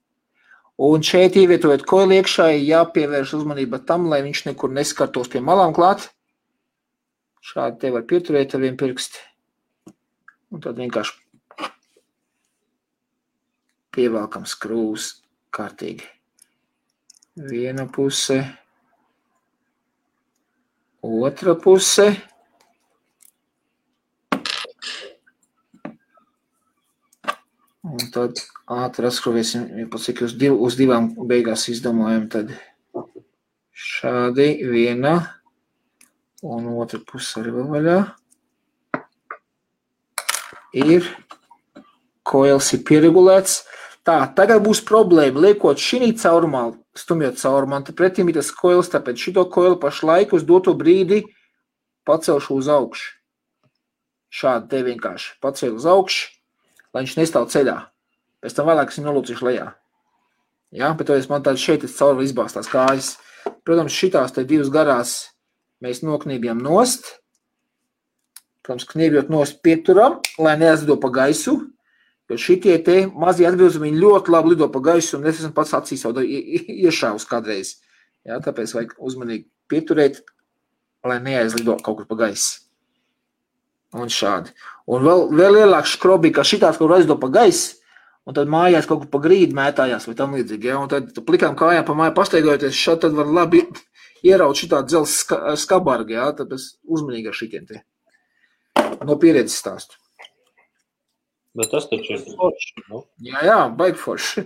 Un šeit ievietojot koili iekšā, jāpievērš uzmanība tam, lai viņš nekur neskartos pie malām klāt. Šādi te var pieturēt ar vienu pirksti. Un tad vienkārši pievelkam skrūvus kārtīgi. Viena puse, otra puse. Un tad ātri atskrovēsim, cik uz divām beigās izdomājam, tad šādi viena un otra puse arī vēl vaļā. Ir, koils ir pieregulēts. Tā, tagad būs problēma, liekot šī caurumā, stumjot caurumā, tad pretim ir tas koils, tāpēc šito koilu pašlaik uz doto brīdi pacelšu uz augšu. Šādi te vienkārši pacelu uz augšu. Lai viņš nestāv ceļā. Pēc tam vēlāk es viņu nolūcīšu lejā. Jā, bet man tādi šeit cauri izbāstās kājas. Protams, šitās te divas garās mēs noknībjam nost. Protams, kniebjot nost pieturam, lai neaizlido pa gaisu. Jo šitie te mazie atbilzumi viņi ļoti labi lido pa gaisu un es esmu pats acīs jau iešāvus kādreiz. Jā, tāpēc vajag uzmanīgi pieturēt, lai neaizlido kaut kur pa gaisu. Un šādi. Un vēl lielāks škrobi, ka šitās kaut kur aizdo pa gaisu, un tad mājās kaut kur pa grīdu mētājās vai tam līdzīgi. Ja? Un tad plikām kājām pa māju pasteigojoties, šādi tad var labi ieraut šitā dzels skabargi, ja? Tāpēc uzmanīgi ar šitiem te. No pieredzes stāstu. Bet tas taču ir forši, nu? Jā, baigi forši.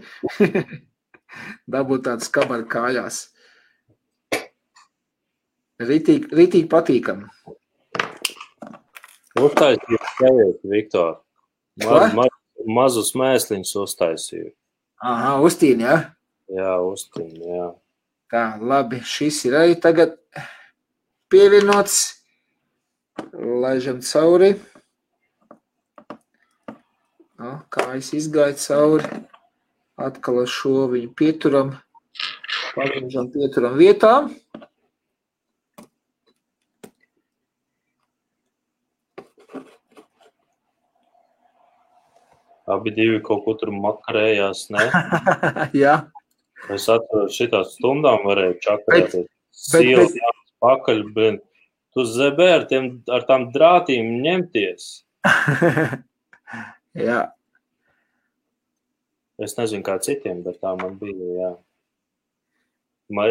Dabūt tāds kabaru kājās. Ritīgi patīkam. Uztaisīju teviet, Viktor. Mazus mēsliņus uztaisīju. Aha, Ustīni, ja? Jā, Ustīni, jā. Tā, labi, šis ir arī tagad pievienots. Laižam cauri. Kājas izgāja cauri. Atkal ar šo viņu pieturam. Pagriežam pieturam vietā. Abi divi kaut ko tur makarējās, ne? Jā. Es atceros, šitās stundām varēju čakarēties. Sīles jāmas pakaļ, bet tu zebē ar tām drātīm ņemties. Jā. Es nezinu, kā citiem, bet tā man bija, jā.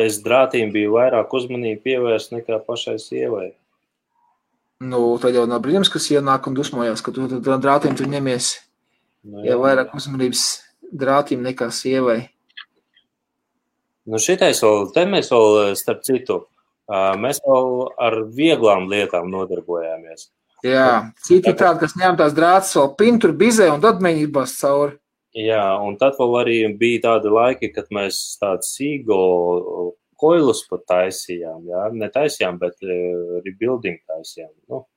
Es drātīm biju vairāk uzmanību pievērst nekā pašai sievai. Nu, tad jau nav brīnums, kas ienāk un dusmojās, ka tu drātīm tu ņemies. Nu, ja vairāk uzmanības drātīm nekā sievai. Nu šitais vēl, te mēs vēl, starp citu, mēs vēl ar vieglām lietām nodarbojāmies. Jā, citi tādi, kas ņem tās drātas vēl pintur, bizē un tad mēģinās cauri. Jā, un tad vēl arī bija tādi laiki, kad mēs tādu sīgo koilus pat taisījām, jā, ne taisījām, bet rebuilding taisījām, nu,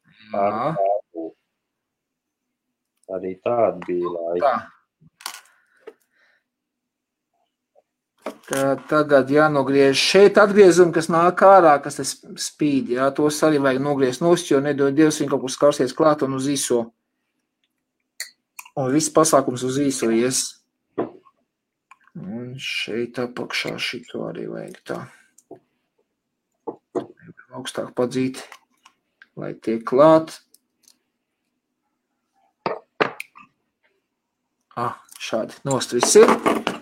arī tāda bija laika. Tā. Tagad jānogriež šeit atgriezumi, kas nāk ārā, kas tas spīd. Jā, tos arī vajag nogriezt nost, jo nedod Dievs viņu kaut kur skarsies klāt un uz īso. Un viss pasākums uz īso ies. Un šeit apakšā šito arī vajag tā. Augstāk padzīt, lai tiek klāt. Šādi nost viss ir.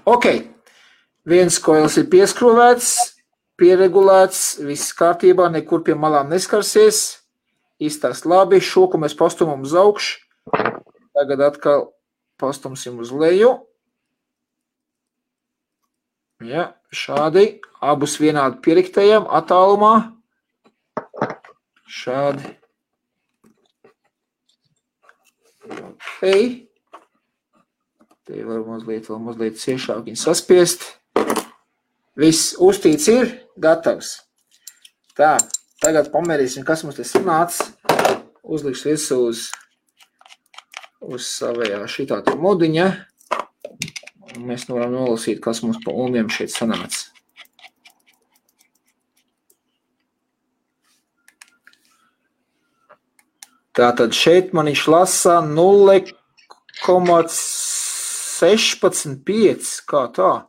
Ok, viens koils ir pieskrūvēts, pieregulēts, viss kārtībā, nekur pie malām neskarsies. Iztās labi, šoku mēs pastumam uz augšu. Tagad atkal pastumsim uz leju. Ja, šādi, abus vienādi pieriktējam attālumā. Šādi. Ok. Te var mazliet ciešāk viņu saspiest. Viss uztīts ir gatavs. Tā, tagad pamērīsim, kas mums te sanāca. Uzliks visu uz savējā šitā tur modiņa. Un mēs varam nolasīt, kas mums pa umiem šeit sanāca. Tātad šeit man viņš lasa 0,16,5, kā tā?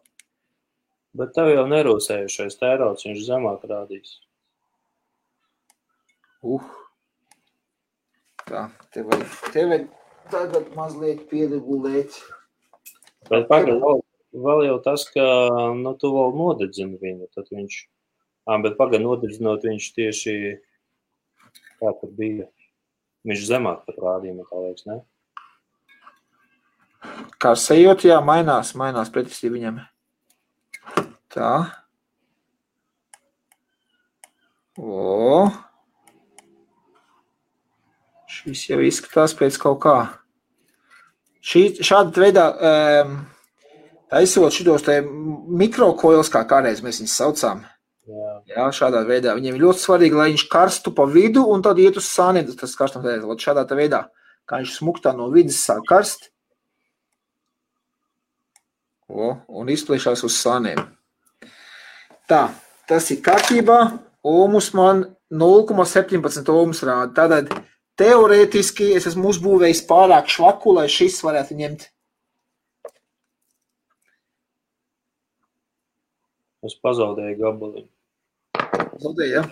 Bet tev jau nerūsējušais tērauds, viņš zemāk rādīs. Tā, te vajag tagad mazliet pieregulēt. Bet pagaid, vēl jau tas, ka tu vēl nodedzini viņu, tad viņš, bet pagaid nodedzinot viņš tieši, kā tad bija, viņš zemāk pat rādījuma, tā liekas, ne? Kā sajūt, jā, mainās pretestī viņam. Tā. Šis jau izskatās pēc kaut kā. Šāda veidā, taisot šitos te mikrokoils, kā kādreiz mēs viņus saucām. Jā, šādā veidā. Viņiem ir ļoti svarīgi, lai viņš karstu pa vidu un tad iet uz sāniem, tas karstam tādēļ. Šādā veidā, kā viņš smuktā no vidas sāk karst. Un izpliešās uz sāniem. Tā, tas ir kārtībā. Ohmus man 0,17 ohmus rāda. Tātad teorētiski es esmu uzbūvējis pārāk švaku, lai šis varētu ņemt. Es pazaudēju gabaliņu. Zaudēju, ja?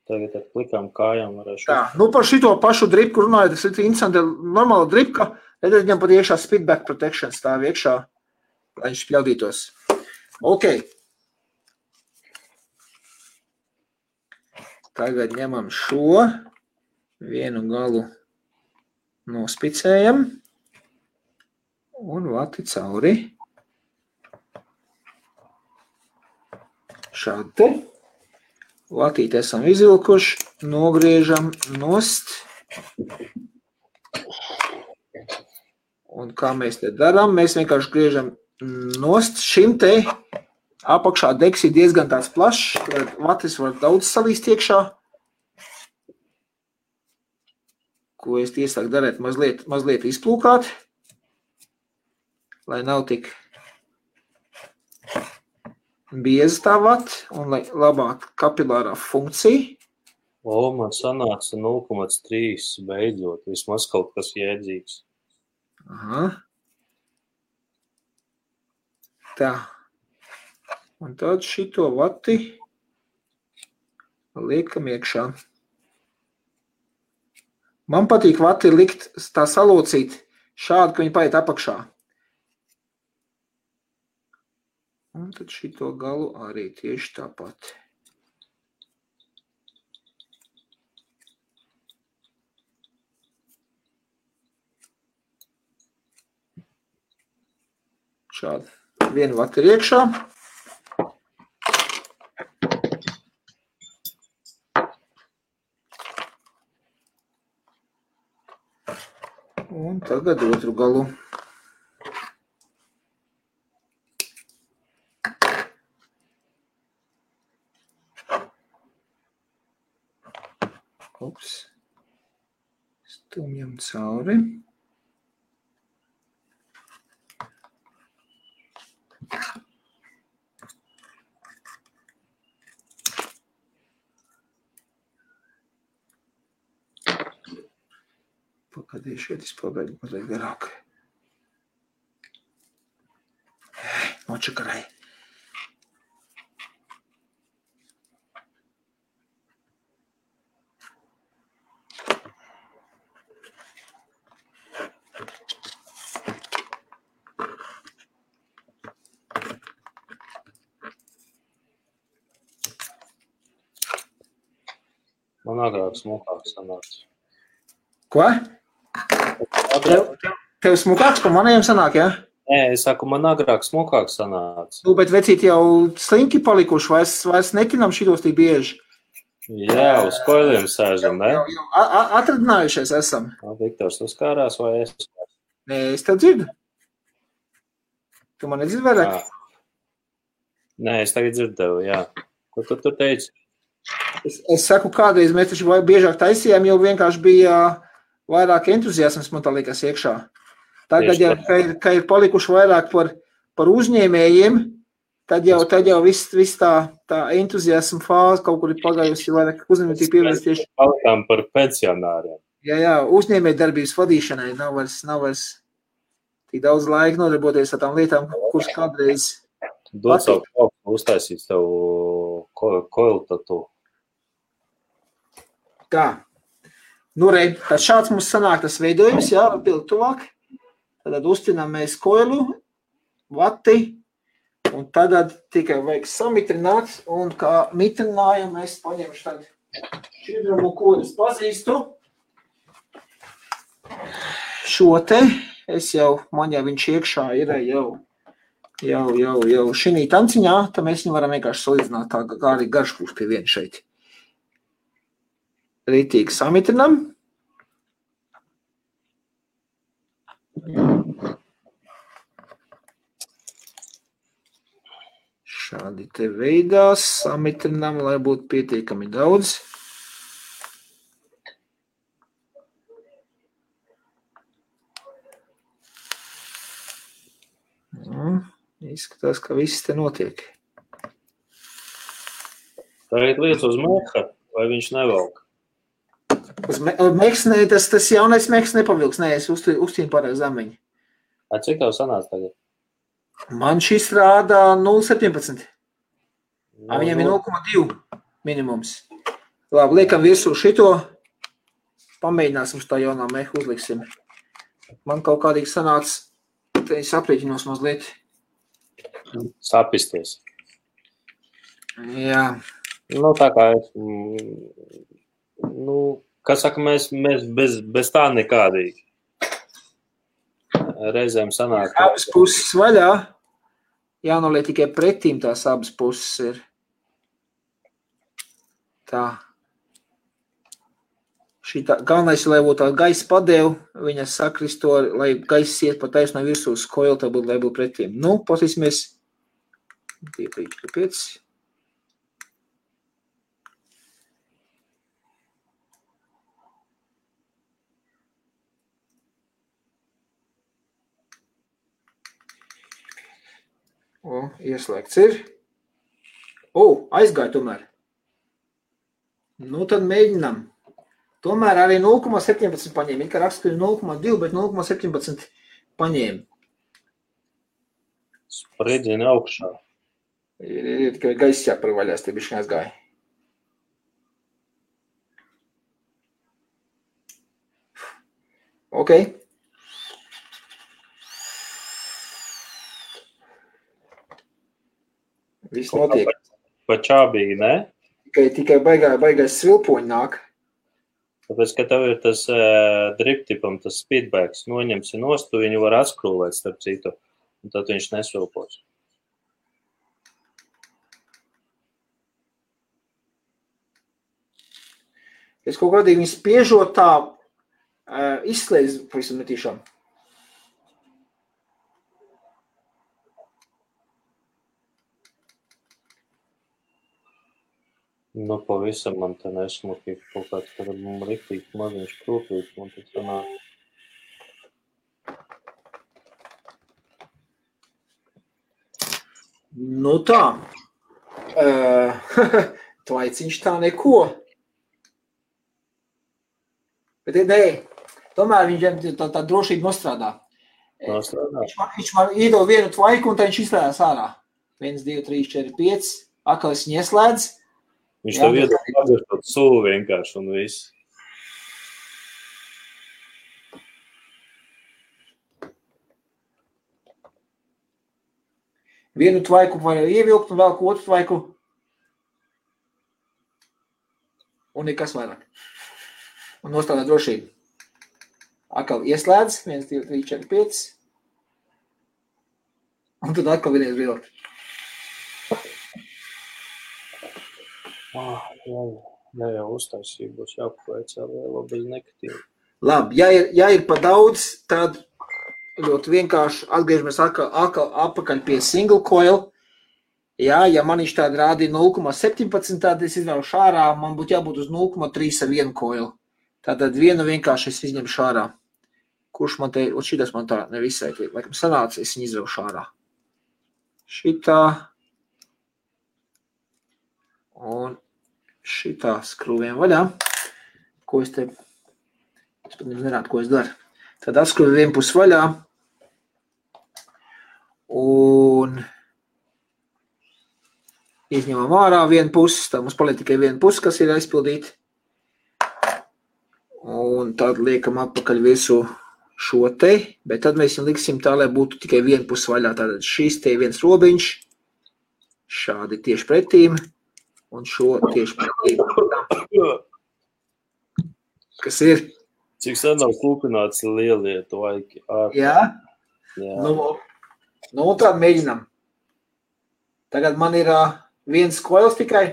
Tagad ar plikām kājām varēšu. Tā, par šito pašu dripku runājot, tas ir interesanti, normāla dripka, redzēt, viņam pat iekšā speedback protection stāv iekšā, lai viņš pļaudītos. Ok. Tagad ņemam šo, vienu galu nospicējam un vati cauri. šādi te. Latīti esam izvilkuši, nogriežam nost. Un kā mēs te darām, mēs vienkārši griežam nost. Šim te apakšā degs ir diezgan tāds plašs, tad vatis var daudz salīst iekšā. Ko es iesaku darēt, mazliet izplūkāt, lai nav tik bieza tā vata un lai labāk kapilārā funkcija. Man sanāca 0,3 beidzot, vismaz kaut kas jēdzīgs. Aha. Tā. Un tad šito vati liekam iekšā. Man patīk vati likt tā salocīt šādi, ka viņi paiet apakšā. Un tad šito galu arī tieši tāpat. Šādi. Viena vata ir iekšā. Un tagad otru galu. Ups. Stumjam cauri. Pagaidīju šeit, es pagaidu mazliet garāk. Nočakarai. Man agrāk smukāk sanāca. Ko? Tev smukāks pa manējiem sanāk, ja? Nē, es saku, man agrāk smukāk sanāca. Bet vecīt jau slinki palikuši, vairs netinam šitos tik bieži. Jā, uz koiliem sēžam, ne? Jau atradinājušies esam. Viktors, tu skārās vai es? Nē, es tev dzirdu. Tu man nedzirdi vairāk? Nē, es tagad dzirdēju, jā. Ko tu tur teici? Es saku, kādreiz mēs taču biežāk taisījām, jau vienkārši bija vairāk entuziasms, man tā liekas, iekšā. Tagad jau, ka ir palikuši vairāk par uzņēmējiem, tad jau viss tā entuziasma fāze kaut kur ir pagājusi, vairāk uzņēmēji pievērst tieši. Palikām par pensionāriem. Jā, uzņēmēji darbības vadīšanai nav vairs tik daudz laika nodarboties ar tām lietām, kuras kādreiz. Dod savu kaut uztaisīt tev koilu tatu. Tā. Nu, tad šāds mums sanāk tas veidojums, jā, pildi tuvāk. Tad uztinām mēs koilu, vati, un tad tikai vajag samitrināt, un kā mitrinājumu mēs paņemšu tad šķidrumu, ko es pazīstu. Šo te, man jau viņš iekšā ir jau šinī tanciņā, tad mēs viņu varam vienkārši salīdzināt tā, kā arī garš būs pie viena šeit. Rītīgi samitrinam. Šādi te veidā samitrinam, lai būtu pietiekami daudz. Izskatās, ka viss te notiek. Tagad liec uz meha, vai viņš nevelk? Uz meksnē, tas jaunais meks nepavilks. Nē, es uztīnu pārāk zemiņu. Cik tev sanāca tagad? Man šis rāda 0,17. Viņam ir 0,2 minimums. Labi, liekam virsū šito. Pamēģināsim šo jaunā mehu uzliksim. Man kaut kādīgi sanāca, te es aprēķinos mazliet. Sapisties. Jā. Nu, tā kā es... Kā saka, mēs bez tā nekādīgi. Reizēm sanāk. Abas puses vaļā. Jānoliek tikai pretīm tās abas puses ir. Tā. Šitā, galvenais, lai būtu tā gaisa padeva, viņa sakristo, lai gaisa iet pa taisno virsū uz koilu, tā būtu, lai būtu pretīm. Nu, patīsimies. 2, 3, 4, 5. O, ieslēgts ir. O, aizgāja tomēr. Nu, tad mēģinām. Tomēr arī 0,17 paņēma. Kā raksta, ka 0,2, bet 0,17 paņēma. Spriedzina augšā. Ir tikai gaisa jāparvaļās, te bišķi aizgāja. Ok. Viss notiek. Pa čābīgi, ne? Tikai baigais svilpoņi nāk. Tāpēc, ka tev ir tas driptipam, tas speedbags, noņemsi nost, tu viņu var atskrūvēt starp citu, un tad viņš nesvilpos. Es kaut kādīgi viņu spiežot tā izslēdz pavisam netīšām. Nu, pavisam man te nesmuki kaut kāds, kad man riktīgi maziņš krūpīgs, man tas sanāk. Nu tā. Tvaiciņš tā neko. Bet nē, tomēr viņš tā drošība nostrādā. Viņš var iedod vienu tvaiku un tā viņš izslēdās ārā. 1, 2, 3, 4, 5. Akal es viņu ieslēdz. Viņš tev iedod pagarstot sulu vienkārši un viss. Vienu tvaiku var ievilkt un vēl otru tvaiku. Un nekas vairāk. Un nostrādā drošību. Akal ieslēdz. 1, 2, 3, 4, 5. Un tad atkal vienreiz vilkt. Jā, jau uztaisīja, būs jāpaveic vēl bez nekatīva. Labi, ja ir pa daudz, tad ļoti vienkārši atgriežamies atpakaļ pie single coil. Jā, ja man viņš tāda rādīja 0,17, tad es izvēlušu ārā, man būtu jābūt uz 0,3 ar vienu coil. Tātad vienu vienkārši es izņemšu ārā. Kurš man te, un šitas man tā nevisai, laikam sanāca, es viņu izvēlušu ārā. Šitā. Un šitā skrūviem vaļā. Ko es te, es pat nerādu, ko es daru. Tad atskrūvi vienu pusi vaļā. Un izņemam ārā vienu pusi. Tad mums paliek tikai viena pusi, kas ir aizpildīta. Un tad liekam atpakaļ visu šo te. Bet tad mēs viņu liksim tā, lai būtu tikai viena pusi vaļā. Tātad šīs te viens robiņš. Šādi tieši pretīm. Un šo tieši pretīm. Kas ir? Cik sen nav kūpināts lielie tvaiki? Jā? Nu, tad mēģinām. Tagad man ir viens koils tikai.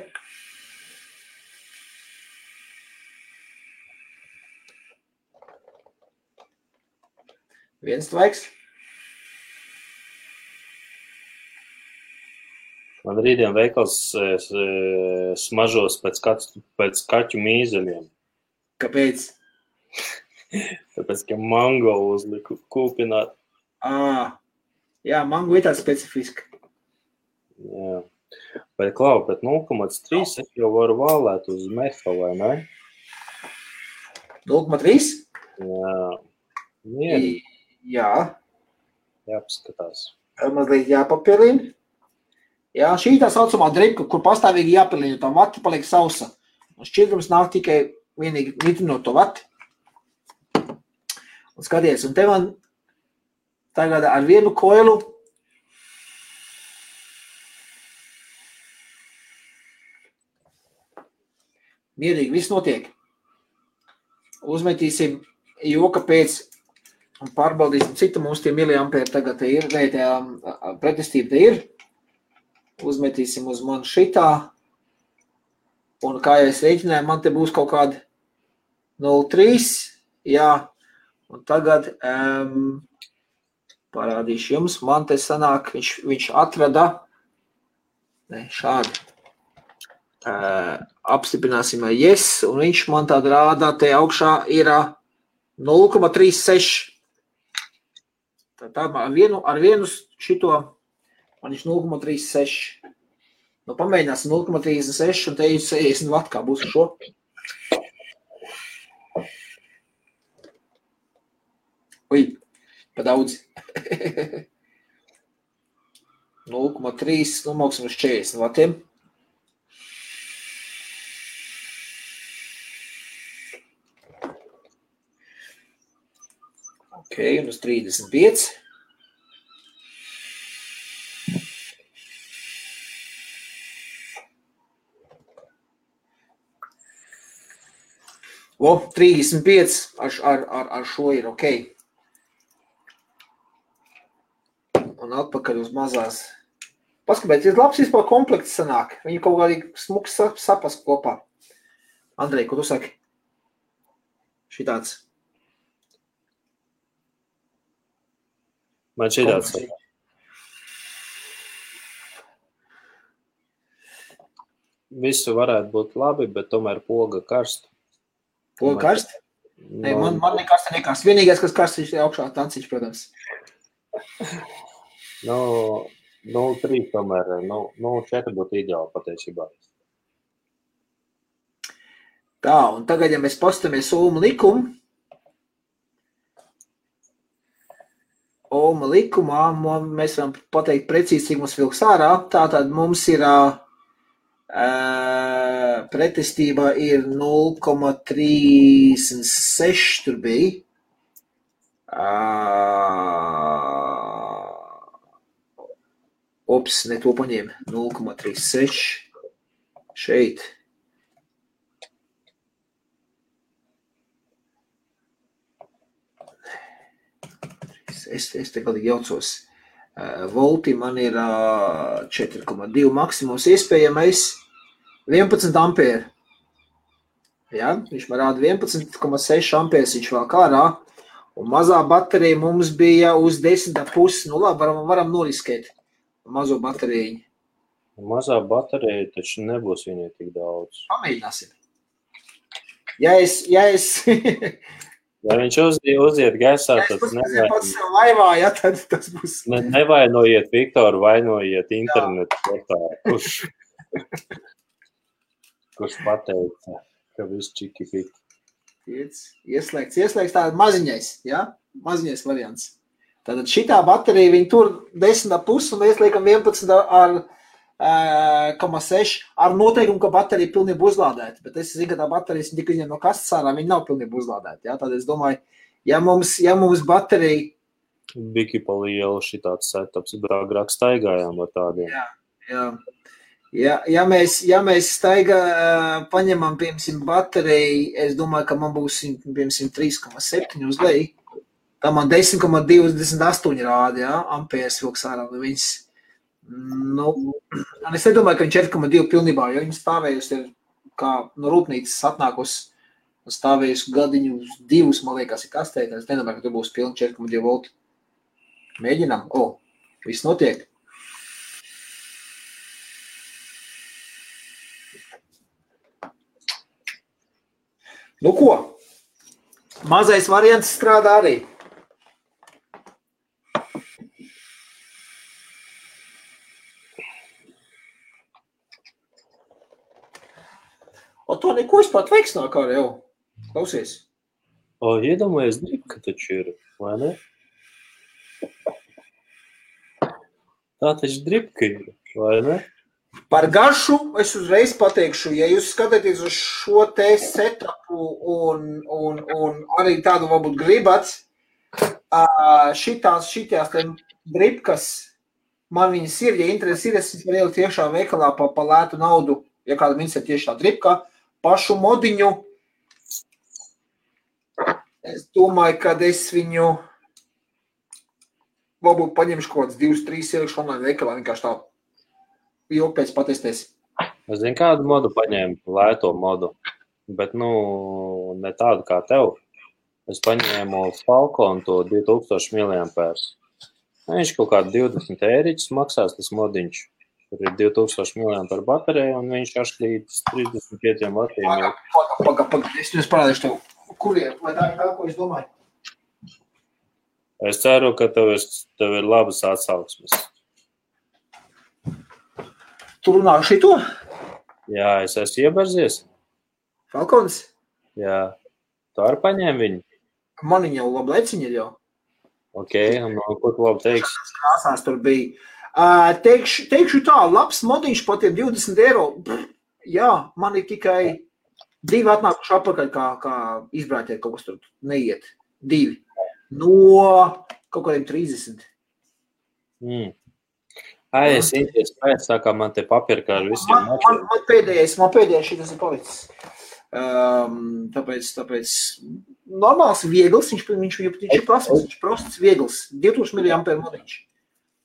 Viens tvaiks. Man rītdien veikals smažos pēc kaķu mīzeļiem. Kāpēc? Tāpēc, ka mango uzliku kūpināt. Jā, mango ir tā specifiska. Jā. Bet, Klau, bet 0,3 es jau varu vālēt uz meha, vai ne? 0,3? Jā. Mierīgi. Jā. Jāpaskatās. Mazliet jāpapilina. Jā, šī tā saucamā dripka, kur pastāvīgi jāpilina, tā vati paliek sausa. Un šķidrums nāk tikai vienīgi nitrinot to vati. Un skaties, un te man tagad ar vienu koilu mierīgi viss notiek. Uzmetīsim joka pēc un pārbaudīsim, cik mums tie miliampēri tagad te ir, vai tie pretestība te ir. Uzmetīsim uz mani šitā. Un kā jau es rēķināju, man te būs kaut kādi 0,3. Jā, un tagad parādīšu jums. Man te sanāk, viņš atrada šādi. Apstiprināsim yes, un viņš man tāda rādā, te augšā ir 0,36. Tā ar vienu šito, man viņš 0,36. Nu, pamēģināsim 0,36 un te ir 60 vat, kā būs šo. Ui, pa daudz. 0,3, nu, māksim uz 40 vatiem. Ok, un uz 35. O, 35 ar šo ir ok. Un atpakaļ uz mazās. Paskatieties, labs vispār komplekts sanāk. Viņi kaut kādīgi smuks sapas kopā. Andrej, ko tu saki? Šitāds. Man šitāds. Visu varētu būt labi, bet tomēr poga karst. Poga karst? Nē, man nekas te nekas. Vienīgais, kas karst, ir augšā tanciņš, protams. 0,3 tomēr, 0,4 būtu ideāli patiesībā. Tā, un tagad, ja mēs pastamies Ohma likumu, Ohma likumā, mēs varam pateikt precīzi, cik mums vilks ārā. Tātad mums ir pretestība ir 0,36 tur bija. Ops, ne to paņēma. 0,36 šeit. Es te galīgi jaucos. Volti man ir 4,2 maksimums iespējamais 11 ampēri. Ja? Viņš man rāda 11,6 ampērs, viņš vēl kārā. Un mazā baterija mums bija uz 10,5. Nu labi, varam noriskēt mazo bateriju. Mazā baterija taču nebūs viņai tik daudz. Pamēģināsim. Ja viņš uziet gaisā, tad nevainojiet Viktoru, vainojiet internetu portālu, kurš pateica, ka viss čiki piki. Ieslēgts tāda maziņais, ja? Maziņais variants. Tātad šitā baterija, viņi tur 10,5 un mēs liekam 11 ar 0,6 ar noteikumu, ka baterija ir pilnībā uzlādēta. Bet es zinu, ka tā baterija tika izņemta no kastes ārā, viņa nav pilnībā uzlādēta. Ja? Tad es domāju, ja mums baterija... Biki pa lielu šitāds setups, agrāk staigājām ar tādiem. Jā. Ja mēs paņemam, piemēram, bateriju, es domāju, ka man būs, piemēram, 3,7 uz leju. Tā man 10,28 rāda, ja? Ampērs vilks ārā no viņas. Nu, es nedomāju, ka viņš 4,2 pilnībā, jo viņa stāvējusi ir kā no rūpnīcas atnākusi un stāvējusi gadiņu 2, man liekas, ir kastē. Es nedomāju, ka tu būs pilni 4,2 volti. Mēģinām. Viss notiek. Nu ko? Mazais variants strādā arī. O to neko vispār veiks nāk ārā jau. Klausies. Iedomājies, dripka taču ir, vai ne? Tā taču dripka ir, vai ne? Par garšu es uzreiz pateikšu, ja jūs skatāties uz šo te setupu un arī tādu varbūt gribat, šitās dripkas, man viņas ir, ja interesi ir, es varu ielikt tiešā veikalā pa lētu naudu, ja kāda viņas ir tieši tā dripka, pašu modiņu, es domāju, kad es viņu varbūt paņemšu kaut kāds 2-3 ielikšu online veikalā, vienkārši tā ilgi pēc patestēs. Es zinu, kādu modu paņēmu, lēto modu, bet, ne tādu kā tev. Es paņēmu Falcon to 2000 mAh. Viņš kaut kādu 20 eiriķus maksās, tas modiņš. Tur ir 2000 mAh baterija, un viņš līdz 35 vatiem. Paga, es jums parādīšu tev, kuriem, vai tā ir tā, ko es domāju? Es ceru, ka tev ir labas atsauksmes. Tu runā šito? Jā, es esmu ieberzies. Falcons? Jā. Tu arī paņēmi viņu? Man viņa jau labi leciņa ir jau. Ok, un ko tu labi teiksi? Krāsās tur bija. Teikšu tā, labs modiņš par tiem 20 eiro. Jā, man ir tikai 2 atnākuši atpakaļ, kā izbrāķēt kaut kas tur neiet. 2. No kaut kādiem 30. Es īsties pēc, tā kā man te papirkā ar visiem. Man pēdējais šitas ir palicis. Tāpēc normāls, viegls, viņš ir prasmes, viņš prosts, viegls, 2000 mAh modiņš.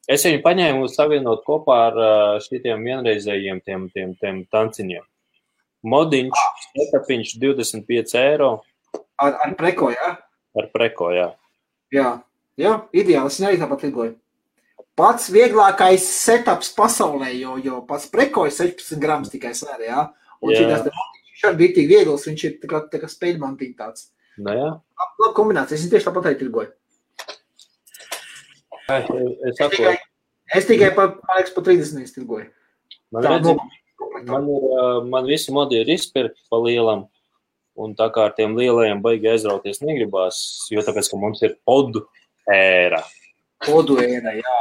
Es viņu paņēmu savienot kopā ar šitiem vienreizējiem tiem tanciņiem. Modiņš, setapiņš 25 eiro. Ar preko, jā? Ar preko, jā. Jā, ideāli, es arī tāpat lidoju. Pats vieglākais setups pasaulē, jo pats preko ir 16 grams tikai svēr, jā? Un šitās te modiņš šādi bija tik viegls, viņš ir tā kā spēļmantiņ tāds. Nu, jā. Labi kombinācija, es tieši tāpat arī lidoju. Es tikai pa 30 tirgoju. Man visi modi ir izpirkti pa lielam, un tā kā ar tiem lielajiem baigi aizrauties negribās, jo tāpēc, ka mums ir podu ēra. Podu ēra, jā.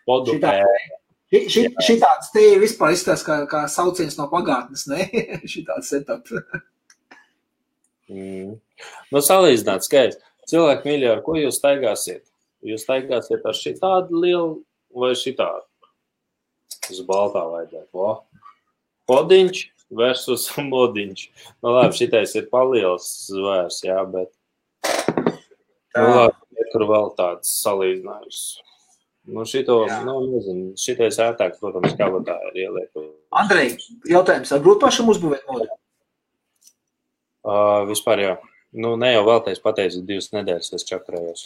Podu ēra. Šitāds te vispār izstās kā sauciens no pagātnes, ne? Šitāds setup. Salīdzināt skaisti. Cilvēki mīļi, ar ko jūs staigāsiet? Jūs staigāsiet ar šitādu lielu vai šitādu? Uz baltā vajadzētu. Podiņš versus modiņš. Labi, šitais ir paliels zvērs, jā, bet tur vēl tāds salīdzinājums. Nezinu, šitais ētāk, protams, kabatā ir ieliek. Andrej, jautājums, ar grūti pašam uzbūvēt modi? Vispār jā. Ne jau vēltais pateicu, 2 nedēļas es čakarējos.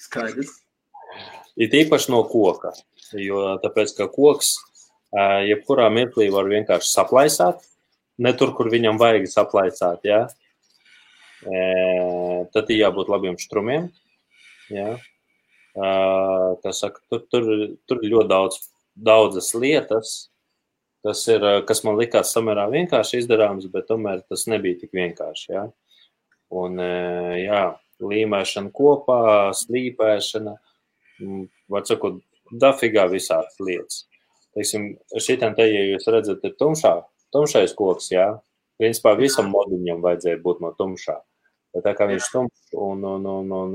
Skaidrs. Ir īpaši no koka, jo tāpēc, ka koks jebkurā mirklī var vienkārši saplaisāt, ne tur, kur viņam vajag saplaisāt, jā. Tad ir jābūt labiem štrumiem, jā. Tur ir ļoti daudzas lietas, kas man likās samērā vienkārši izdarāms, bet tomēr tas nebija tik vienkārši, jā. Un, jā, līmēšana kopā, slīpēšana, var sakot, dafigā visādas lietas. Teiksim, šitam te, ja jūs redzat, ir tumšais koks, jā, principā visam modiņam vajadzēja būt no tumšā. Bet tā kā viņš tumšs un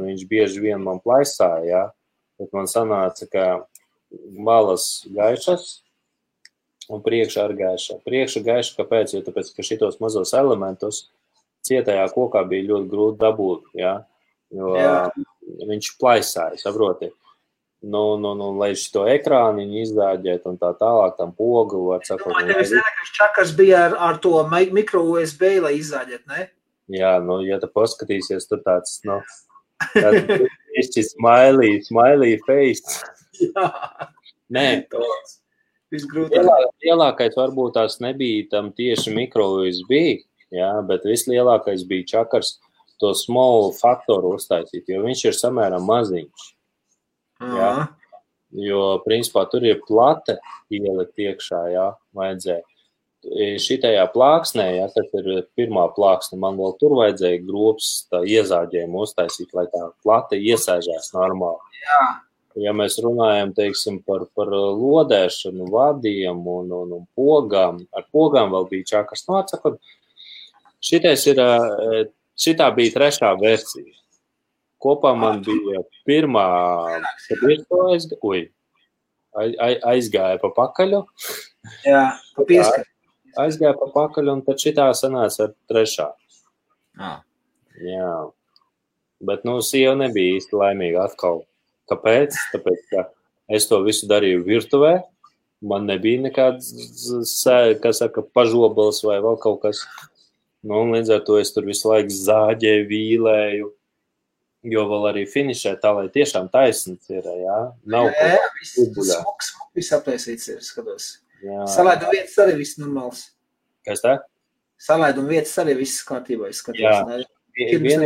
viņš bieži vien man plaisāja, jā, bet man sanāca, ka malas gaišas un priekšā ar gaiša. Priekša gaiša, kāpēc? Jo tāpēc, ka šitos mazos elementus cietajā kokā bija ļoti grūti dabūt, jā, jo viņš plaisāja, saproti. Lai šito ekrāniņu izdāģēt un tā tālāk, tam pogu var sakot. Tevis nenākais čakars bija ar to mikro USB, lai izdāģēt, ne? Jā, ja tu paskatīsies, tur tāds, tāds smiley face. Jā. Nē, lielākais varbūt tās nebija tam tieši mikro USB, jā, bet vislielākais bija čakars to small faktoru uztaisīt, jo viņš ir samērā maziņš. Jā, jo, principā, tur ir plate ielikt iekšā, jā, vajadzēja. Šitajā plāksnē, jā, tas ir pirmā plāksne, man vēl tur vajadzēja grobs tā iezāģējumu uztaisīt, lai tā plate iesēžās normāli. Jā. Ja mēs runājam, teiksim, par lodēšanu, vadiem un pogām, ar pogām vēl bija čakars. Atsakot, šitā bija 3. versija. Kopā man bija pirmā, aizgāja pa pakaļu. Jā, pa pieskaru. Aizgāja pa pakaļu, un tad šitā sanāca ar 3. Jā. Bet, sieva nebija īsti laimīga atkal. Kāpēc? Tāpēc, ka es to visu darīju virtuvē, man nebija nekāds, kā saka, pažobalas vai vēl kaut kas. Nu, un līdz ar to es tur visu laiku zāģēju, vīlēju, jo vēl arī finišē tā, lai tiešām taisnīgs ir, jā? Nav smuks viss apliesīts ir, skatos. Salaidu vietas arī viss normāls. Kas tā? Salaidu vietas arī viss kārtībā, es skatos. Jā, viena,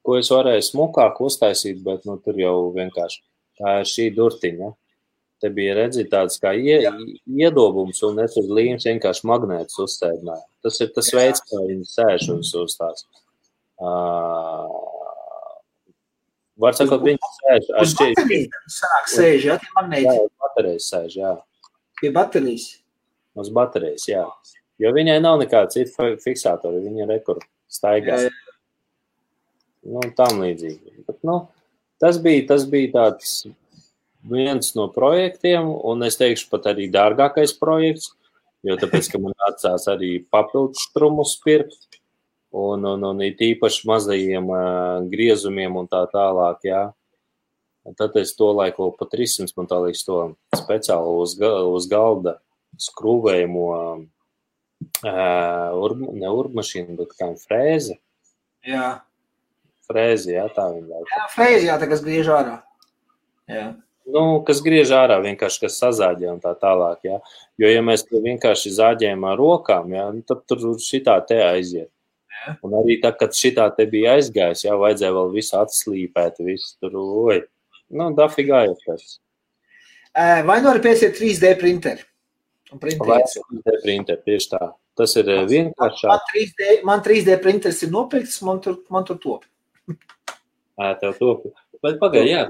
ko es varēju smukāk uztaisīt, bet nu, tur jau vienkārši tā ir šī durtiņa. Te bija redzīt tāds kā iedobums, un es uz līmes vienkārši magnētus uzsēdināju. Tas ir tas veids, kā viņi sēž uz tās. Var sakot, viņi sēž. Uz baterijas sāk sēž, jā, tie magnēti? Jā, uz baterijas sēž, jā. Pie baterijas? Uz baterijas, jā. Jo viņai nav nekāda cita fiksātori, viņa rekur staigās. Nu, tam līdzīgi. Bet, nu, tas bija tāds viens no projektiem, un es teikšu pat arī dārgākais projekts, jo tāpēc, ka man atsās arī papildus štrumus pirkt, un it īpaši mazajiem griezumiem un tā tālāk, jā. Tad es to laiku pa 300, man tā liekas to speciāli uz galda skrūvējamo ne urbmašīnu, bet kā frēze. Jā. Frēzi, jā, tā viņa laiku. Jā, frēzi, jā, tā kas griež ārā. Jā. Nu, kas griež ārā, vienkārši, kas sazāģē un tā tālāk, jā. Jo, ja mēs to vienkārši zāģējam ar rokām, jā, tad tur šitā te aiziet. Jā. Un arī tā, kad šitā te bija aizgājis, jā, vajadzēja vēl visu atslīpēt, visu tur, nu, dafigā ir tas. Vai nu arī pēc ir 3D printeri? Vai 3D printeri, tieši tā. Tas ir vienkāršāk. Man 3D printeris ir nopirkts, man tur top. Tev top. Bet pagaid, jā.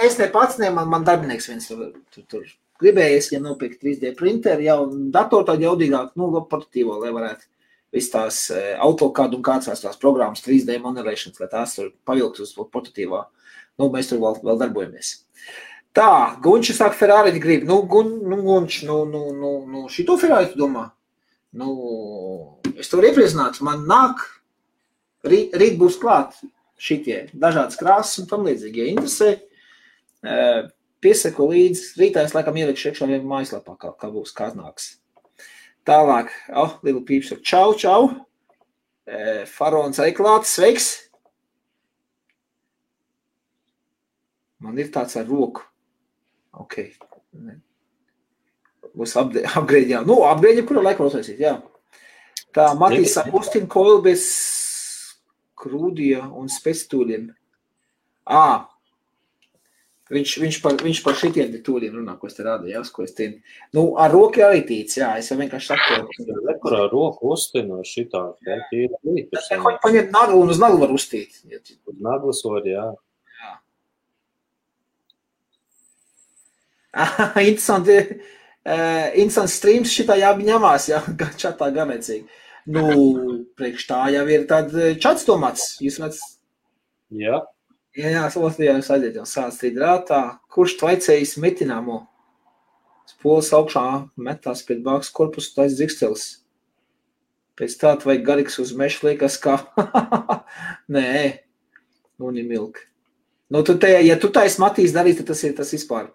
Es ne pats, man darbinieks viens tur gribējies, ja nopirkt 3D printeri, jau datoru tādu jaudīgāk, nu, portatīvo, lai varētu visu tās AutoCAD un kāds tās programmas 3D modelēšanas, lai tās tur pavilkt uz portatīvā. Nu, mēs tur vēl darbojamies. Tā, Gunčs sāk Ferrari grib. Nu, Gunčs, šito Ferrari tu domā? Nu, es to iepriecināts. Man nāk, rīt būs klāt šitie dažādas krāsas un tam līdzīgi. Ja interesē, piesaku līdz rītā es laikam ielikšu iekšā vien mājaslapā, kā būs, kā nāks. Tālāk, Lila Pīps ar čau. Farons arī klāts, sveiks. Man ir tāds ar roku. Ok. Būs upgrade, jā. Nu, upgrade, kura laika uztaisīt, jā. Tā, Matīs Agustin Coil bez krūdija un spectūļiem. Viņš par šitiem tūļiem runā, ko es te rādu, jā, ko es tiem. Nu, ar roku arī tīts, jā, es jau vienkārši saku. Kur ar roku uztinu šitā, jā, tīra līdz. Paņemt naglu un uz naglu var uztīt. Uz naglas var, jā. Interesants streams šitā jāņemās, jā, čatā ganecīgi. Nu, priekš tā jau ir tad čats domāts, jūs redz? Jā. Jā, Latvijā jūs aiziet jau sāc strīdrātā. Kurš tvaicējis metināmo? Spolas augšā metās pēc bāks korpusu tais dzikstelis. Pēc tā vajag garīgs uz mešu liekas kā. Nē, un ir milk. Nu, ja tu tais Matīs darīs, tad tas ir tas vispār.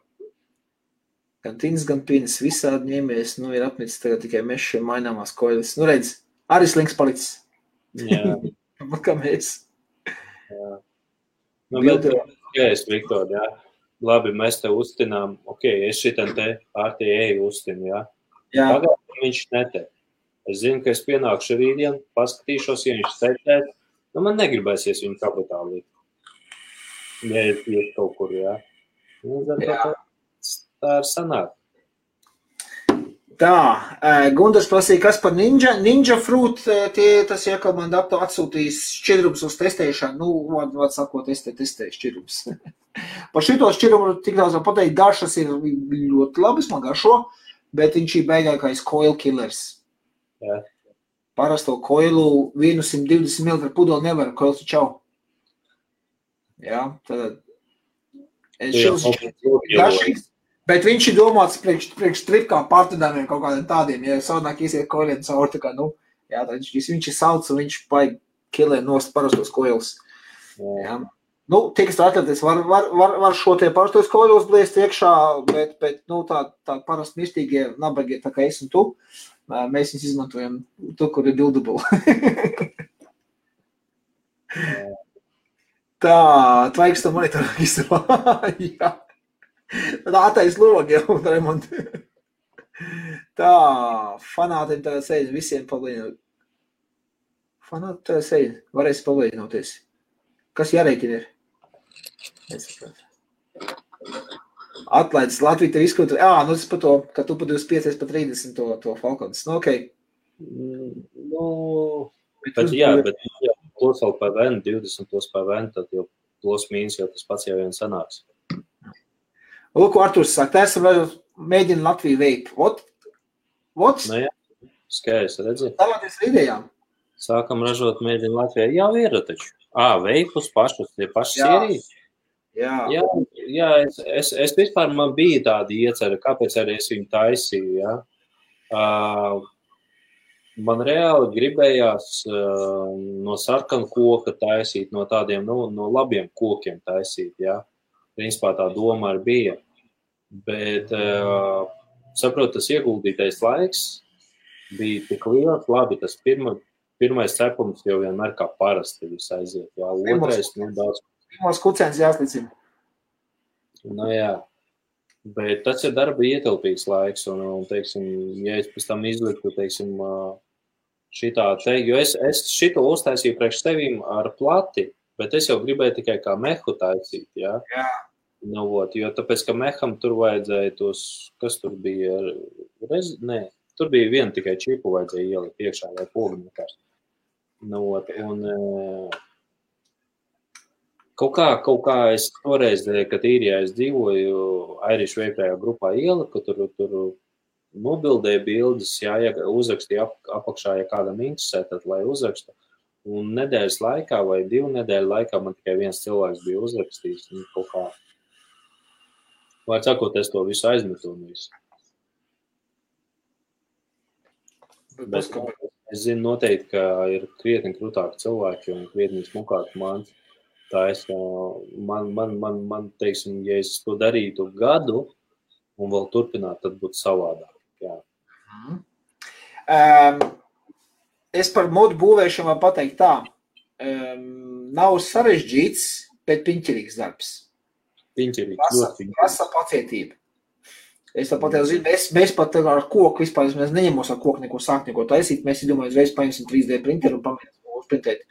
Gan tins, gan pinis, visādi ņēmies, nu, ir apnicis tagad tikai mešu maināmās koilis. Nu, redz, arī slinks palicis. Jā. Kā mēs. Jā. Nu, bet, Viktor, jā. Labi, mēs te uztinām, es šitam te RTA uztinu, jā. Jā. Pagājuši viņš nete. Es zinu, ka es pienākšu rītdien, paskatīšos, ja viņš setēt. Nu, man negribēsies viņu kapitāli. Ja iet kaut kur, jā. Nu, tā ir sanāk. Tā, Gundars prasīja, kas par Ninja Fruit, tas iekal man atsūtīs šķidrums uz testēšanu, nu, var sakot, testē šķidrums. Par šito šķidrumu tik daudz var pateikt, garšas ir ļoti labas, man garšo, bet viņš ir beigākais coil killers. Jā. Parasto coilu 120 ml pudeli nevar, coils ir čau. Jā, tad šis garšīgs. Bet viņš ir domāts priekš tripkām pārtudāmiem kaut kādiem tādiem, ja savādāk iesiet koiliem caur, tā kā, nu, jā, viņš ir sauc un viņš paigi kilē nost parastos koils. Jā. Nu, tiks atletis var šo tie pašos koļos blēst iekšā, bet nu, tā parasti mirstīgie, nabagie, tā kā es un tu, mēs viņus izmantojam tu, kur ir buildable. Tā, tvaiks to monitoru visu. Jā. Tā attais logi jau, Raimond. Tā, fanātiem tā sēļ, visiem palīdzināt. Fanāti tā sēļ, varēs palīdzinoties. Kas jārēķina ir? Atlaides Latvija tev izskatu. Nu tas par to, ka tu pa 25, pa 30 to Falcons. Nu, okei. Nu, bet plus vēl PVN, 20 plus PVN, tad jau plus mīnus jau tas pats jau vien sanāks. Lūk, Arturs saka, tā esam mēģina Latviju veikt. What? Nu jā, skaidrs, redzi. Tālāties ar idejām. Sākam ražot mēģina Latvijā. Jā, ir taču. Veipus pašus, tie paši sērijas. Jā, es vispār man bija tāda iecerē, kāpēc arī es viņu taisīju, jā. Man reāli gribējās no sarkanu koka taisīt, no tādiem, no labiem kokiem taisīt, jā. Principā tā doma arī bija. Bet, saprotu, tas ieguldītais laiks bija tik liels, labi, tas pirmais cepums jau vienmēr kā parasti viss aiziet, jā. Otrais, daudz. Pirmos kucēns jāslicina. Nu jā, bet tas ir darba ietilpīgs laiks, un teiksim, ja es pēc tam izliktu, teiksim, šitā teikt, jo es šito uztaisīju priekš tevīm ar plati, bet es jau gribēju tikai kā mehu taisīt, jā. Jā. Nu, jo tāpēc, ka meham tur vajadzēja tos, kas tur bija, tur bija viena tikai čipu vajadzēja ielikt iekšā vai pogumekars. Nu, un kaut kā es toreiz, kad īrijā es dzīvoju Irish Vape grupā ieliku, tur nobildēja bildes, jā, ja uzrakstīja apakšā, ja kādam interesē, tad lai uzraksta. Un nedēļas laikā vai 2 nedēļu laikā man tikai viens cilvēks bija uzrakstījis, un kaut kā, vārds sakot, es to visu aizmetu un visu. Bet es zinu noteikti, ka ir krietni krūtāki cilvēki un krietni smukāki mans. Tā es, man, teiksim, ja es to darītu gadu un vēl turpināt, tad būtu savādāk. Jā. Es par modu būvēšanu var pateikt tā. Nav sarežģīts, bet piņķirīgs darbs. Piņķirīgs. Prasa pacietība. Es tāpat jau zinu, mēs pat ar koku vispār, mēs neņemos ar koku neko sākt, neko taisīt. Mēs domājam, uzreiz paņemsim 3D printeru un pamēģināsim uzprintēt.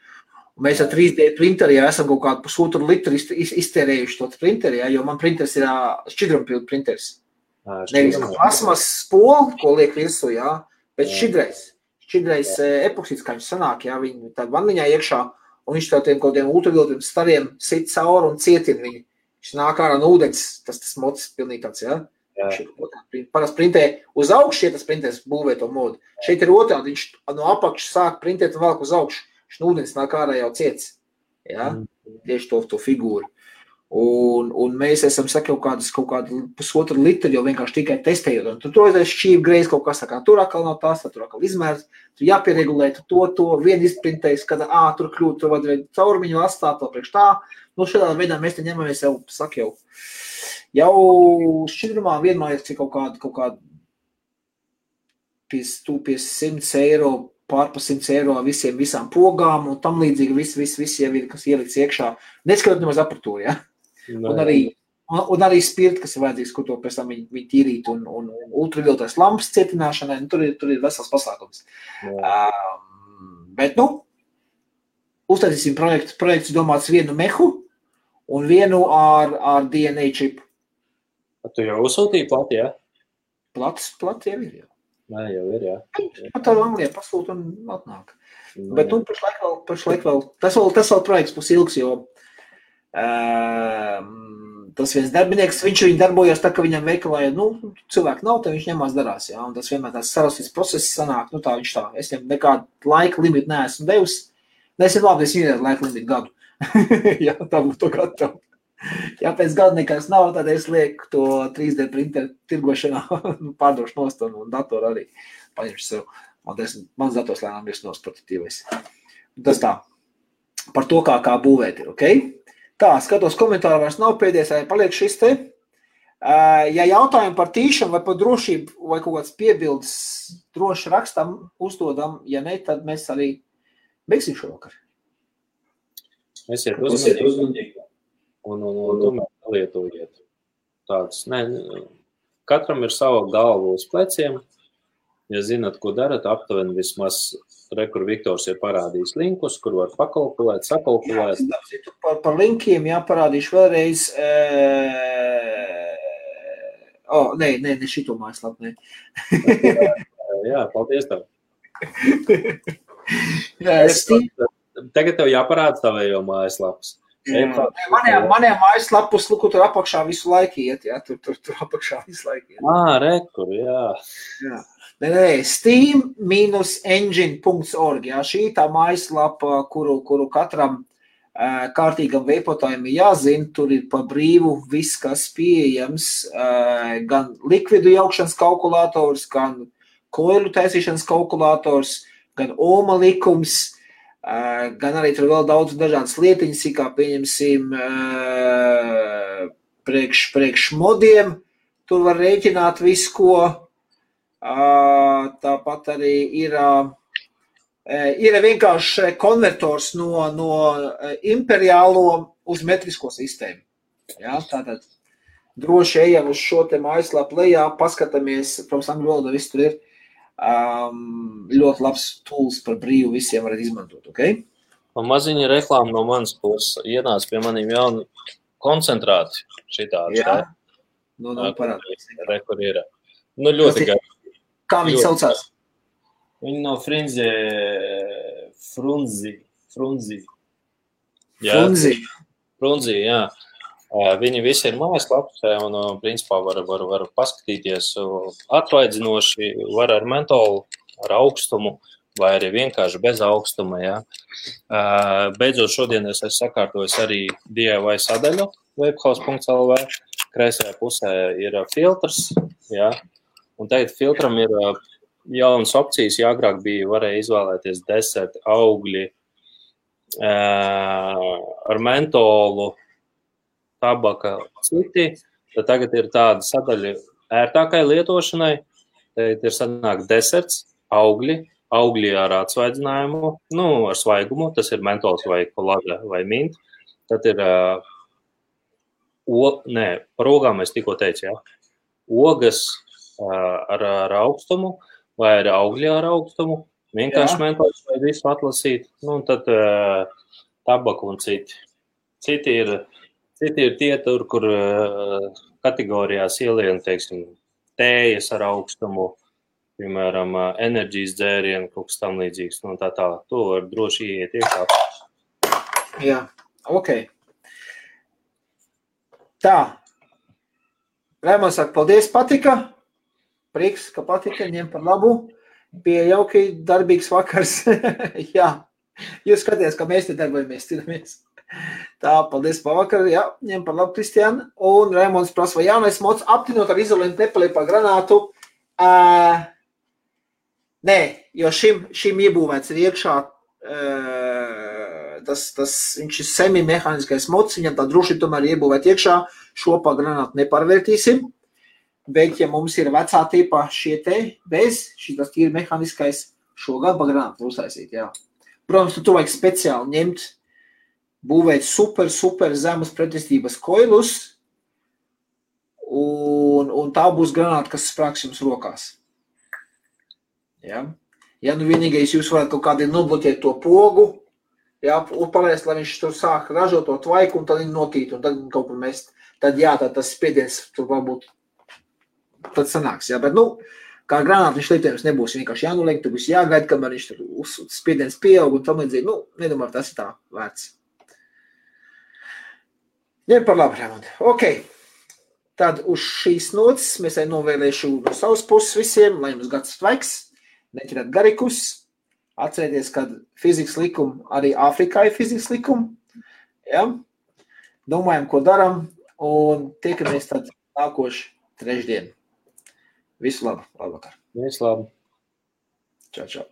Un mēs ar 3D printeri jau esam kaut kādu pusotru litru iztērējuši to printeri, ja, jo man printers ir šķidrumpildu printers. Nevis plasmas spolu, ko liek virsū, ja, bet šķidrais epoksīds, kā viņš sanāk, ja, viņi tāda vanniņā iekšā, un viņš tādiem kaut kādiem ultravioletiem stariem sit cauri un cietina viņu. Viņš nāk ārā no ūdens, tas mods pilnīgi tāds, ja. Parasti printē uz augšu, ja tas printēs būvē to modu. Šeit ir otrādi, viņš no apakšas sāk printēt un velk uz augšu. Viņš no ūdens nāk ārā jau ciets. Ja? Tieši to figūru. Un mēs esam kaut kādu pusotru litru jau vienkārši tikai testējot. Un tur ir šķīvi greiz kaut kas, tā kā tur atkal nav tās, tur atkal izmērs, tur jāpieregulē, to vien izprintējis, kad tur kļūt, tur vajadzēja caurumiņu atstāt vēl priekš tā. Nu, šādā veidā mēs te ņemamies jau šķidrumā vienmēr ir kaut kādu 100 eiro, pār pa 100 eiro visām pogām un tam līdzīgi viss jau ir, kas ielikts iekšā. Neskatot nemaz aparatūru, ja? Un arī spirti, kas ir vajadzīgs, ko to pēc tam viņi tīrīt un ultravioletās lampas cietināšanai, tur ir vesels pasākums. Bet, uztaisīsim projekts domāts vienu mehu un vienu ar DNA čipu. Tu jau uzsūtīji plati, jā? Plati jau ir, jā. Nē, jau ir, jā. Pat tā Anglijā pasūt un atnāk. Bet, pašlaik vēl, tas vēl projekts būs ilgs, jo tas viens darbinieks, viņš darbojas tā, ka viņam veikalā, cilvēki nav, tad viņš ņemās darās, jā, un tas vienmēr tās sarastīts process sanāk, tā viņš tā, es viņam nekādu laika limitu neesmu devis, neesmu labi, es viņam laika limitu gadu, jā, tā būtu to gatavu. Ja pēc gada nekas nav, tad es lieku to 3D printeru tirgošanā, pārdošu nost un datoru arī paņemšu sev. Mans dators lēnām ir prototīvais. Tas tā, par to, kā būvēt ir, ok? Tā, skatos komentāru vairs nav pēdējais, vai paliek šis te. Ja jautājumi par tīšanu vai par drošību vai kaut kāds piebildes droši rakstam, uzdodam, ja ne, tad mēs arī beigsim šovakar. Esiet uzmanīgi un tomēr lietojiet. Tāds, katram ir sava galva uz pleciem. Ja zināt, ko darat, aptuveni vismaz kur Viktors ir parādījis linkus, kur var pakalkulēt, sakalkulēt. Jā, par linkiem jāparādīšu vēlreiz. Ne šito mājaslapu, ne. Jā, paldies tev. Tagad tev jāparāda tavējo mājaslapas. Maniem mājaslapus, kur tur apakšā visu laiku iet, jā, tur apakšā visu laiku iet. Rekur, jā. Steam-engine.org, jā, šī tā mājaslapa, kuru katram kārtīgam veipotājiem ir jāzina, tur ir pa brīvu viss, kas pieejams, gan likvidu jaukšanas kalkulators, gan koilu taisīšanas kalkulators, gan ohma likums, gan arī tur vēl daudz dažādas lietiņas, kā pieņemsim priekš modiem, tur var rēķināt visu, ko. Tāpat arī ir vienkārši konvertors no imperiālo uz metrisko sistēmu. Jā, tātad droši ejam uz šo te mājaslapu lejā, paskatāmies, protams, angļu valodā viss tur ir. Ļoti labs tools par brīvu visiem varat izmantot, ok? Un maziņa reklāma no manas puses ienāca pie maniem jauni koncentrāti šitādi. Jā, parādās. Kur ir. Ļoti gari. Kā viņi saucās? Viņi no Frunzi. Frunzi, jā. Viņi visi ir mājaslapā un, principā, var paskatīties atvaidzinoši, var ar mentolu, ar augstumu, vai arī vienkārši bez augstuma, jā. Beidzot šodien es sakārtojos arī DIY sadaļu webhouse.lv. Kreisajā pusē ir filtrs, jā. Un tagad filtram ir jaunas opcijas, ja agrāk varēja izvēlēties deserti, augļi ar mentolu, tabaka, citi, tad tagad ir tāda sadaļa ērtākai lietošanai, tad ir sanāk deserts, augļi ar atsvaidzinājumu, ar svaigumu, tas ir mentols vai kolāda vai mint, tad ir, par ogām es tikko teicu, jā, ogas, ar augstumu vai ar augļi ar augstumu, vienkārši mentols vai visu atlasīt, un tad tabaku un citi. Citi ir tie tur, kur kategorijās ielien, teiksim, tējas ar augstumu, piemēram, enerģijas dzērienu, kaut kas tam līdzīgs, tā. To var droši ieiet iekšā. Jā, ok. Tā. Raimons saka, paldies, patika. Prieks, ka patika, ņem par labu. Bija jauki, darbīgs vakars. Jā, jūs skaties, ka mēs te darbojamies, cīnamies. Tā, paldies par vakaru. Jā, ņem par labu, Kristiāna. Un Raimons prasa, vai jaunais mods aptinot ar izolentu nepaliek par granātu? Nē, jo šim iebūvēts ir iekšā viņš ir semi-mehāniskais mods, viņam tā droši tomēr iebūvēt iekšā, šo pa granātu nepārvērtīsim. Bet, ja mums ir vecā tipā šie te bez, šitas tīri mehāniskais, šo gan pa granātu uztaisīt, jā. Protams, tu vajag speciāli ņemt, būvēt super zemes pretestības koilus, un tā būs granāta, kas sprāks jums rokās. Jā. Ja vienīgais jūs varat kaut kādi nobloķēt to pogu, jā, un palaist, lai viņš tur sāk ražot to tvaiku, un tad viņi notīt, un tad kaut kur mest. Tad jā, tad tas spiediens tur varbūt tad sanāks, jā, bet, kā granāta viņš lietojums nebūs vienkārši jānoliek, tur būs jāgaida, kamēr viņš tur spiediens pieaug un tam līdzīgi, nedomāju, tas ir tā vērts. Ņem par labu, Raimond. Ok, tad uz šīs nots mēs arī novēlēšu no savas puses visiem, lai jums gads tvaiks, neķerāt garikus, atcerieties, ka fizikas likumi, arī Āfrikā ir fizikas likumi, jā, domājam, ko daram, un tiekamies tad nākoši trešdien. Visu labu, labvakar. Visu labu. Čau, čau.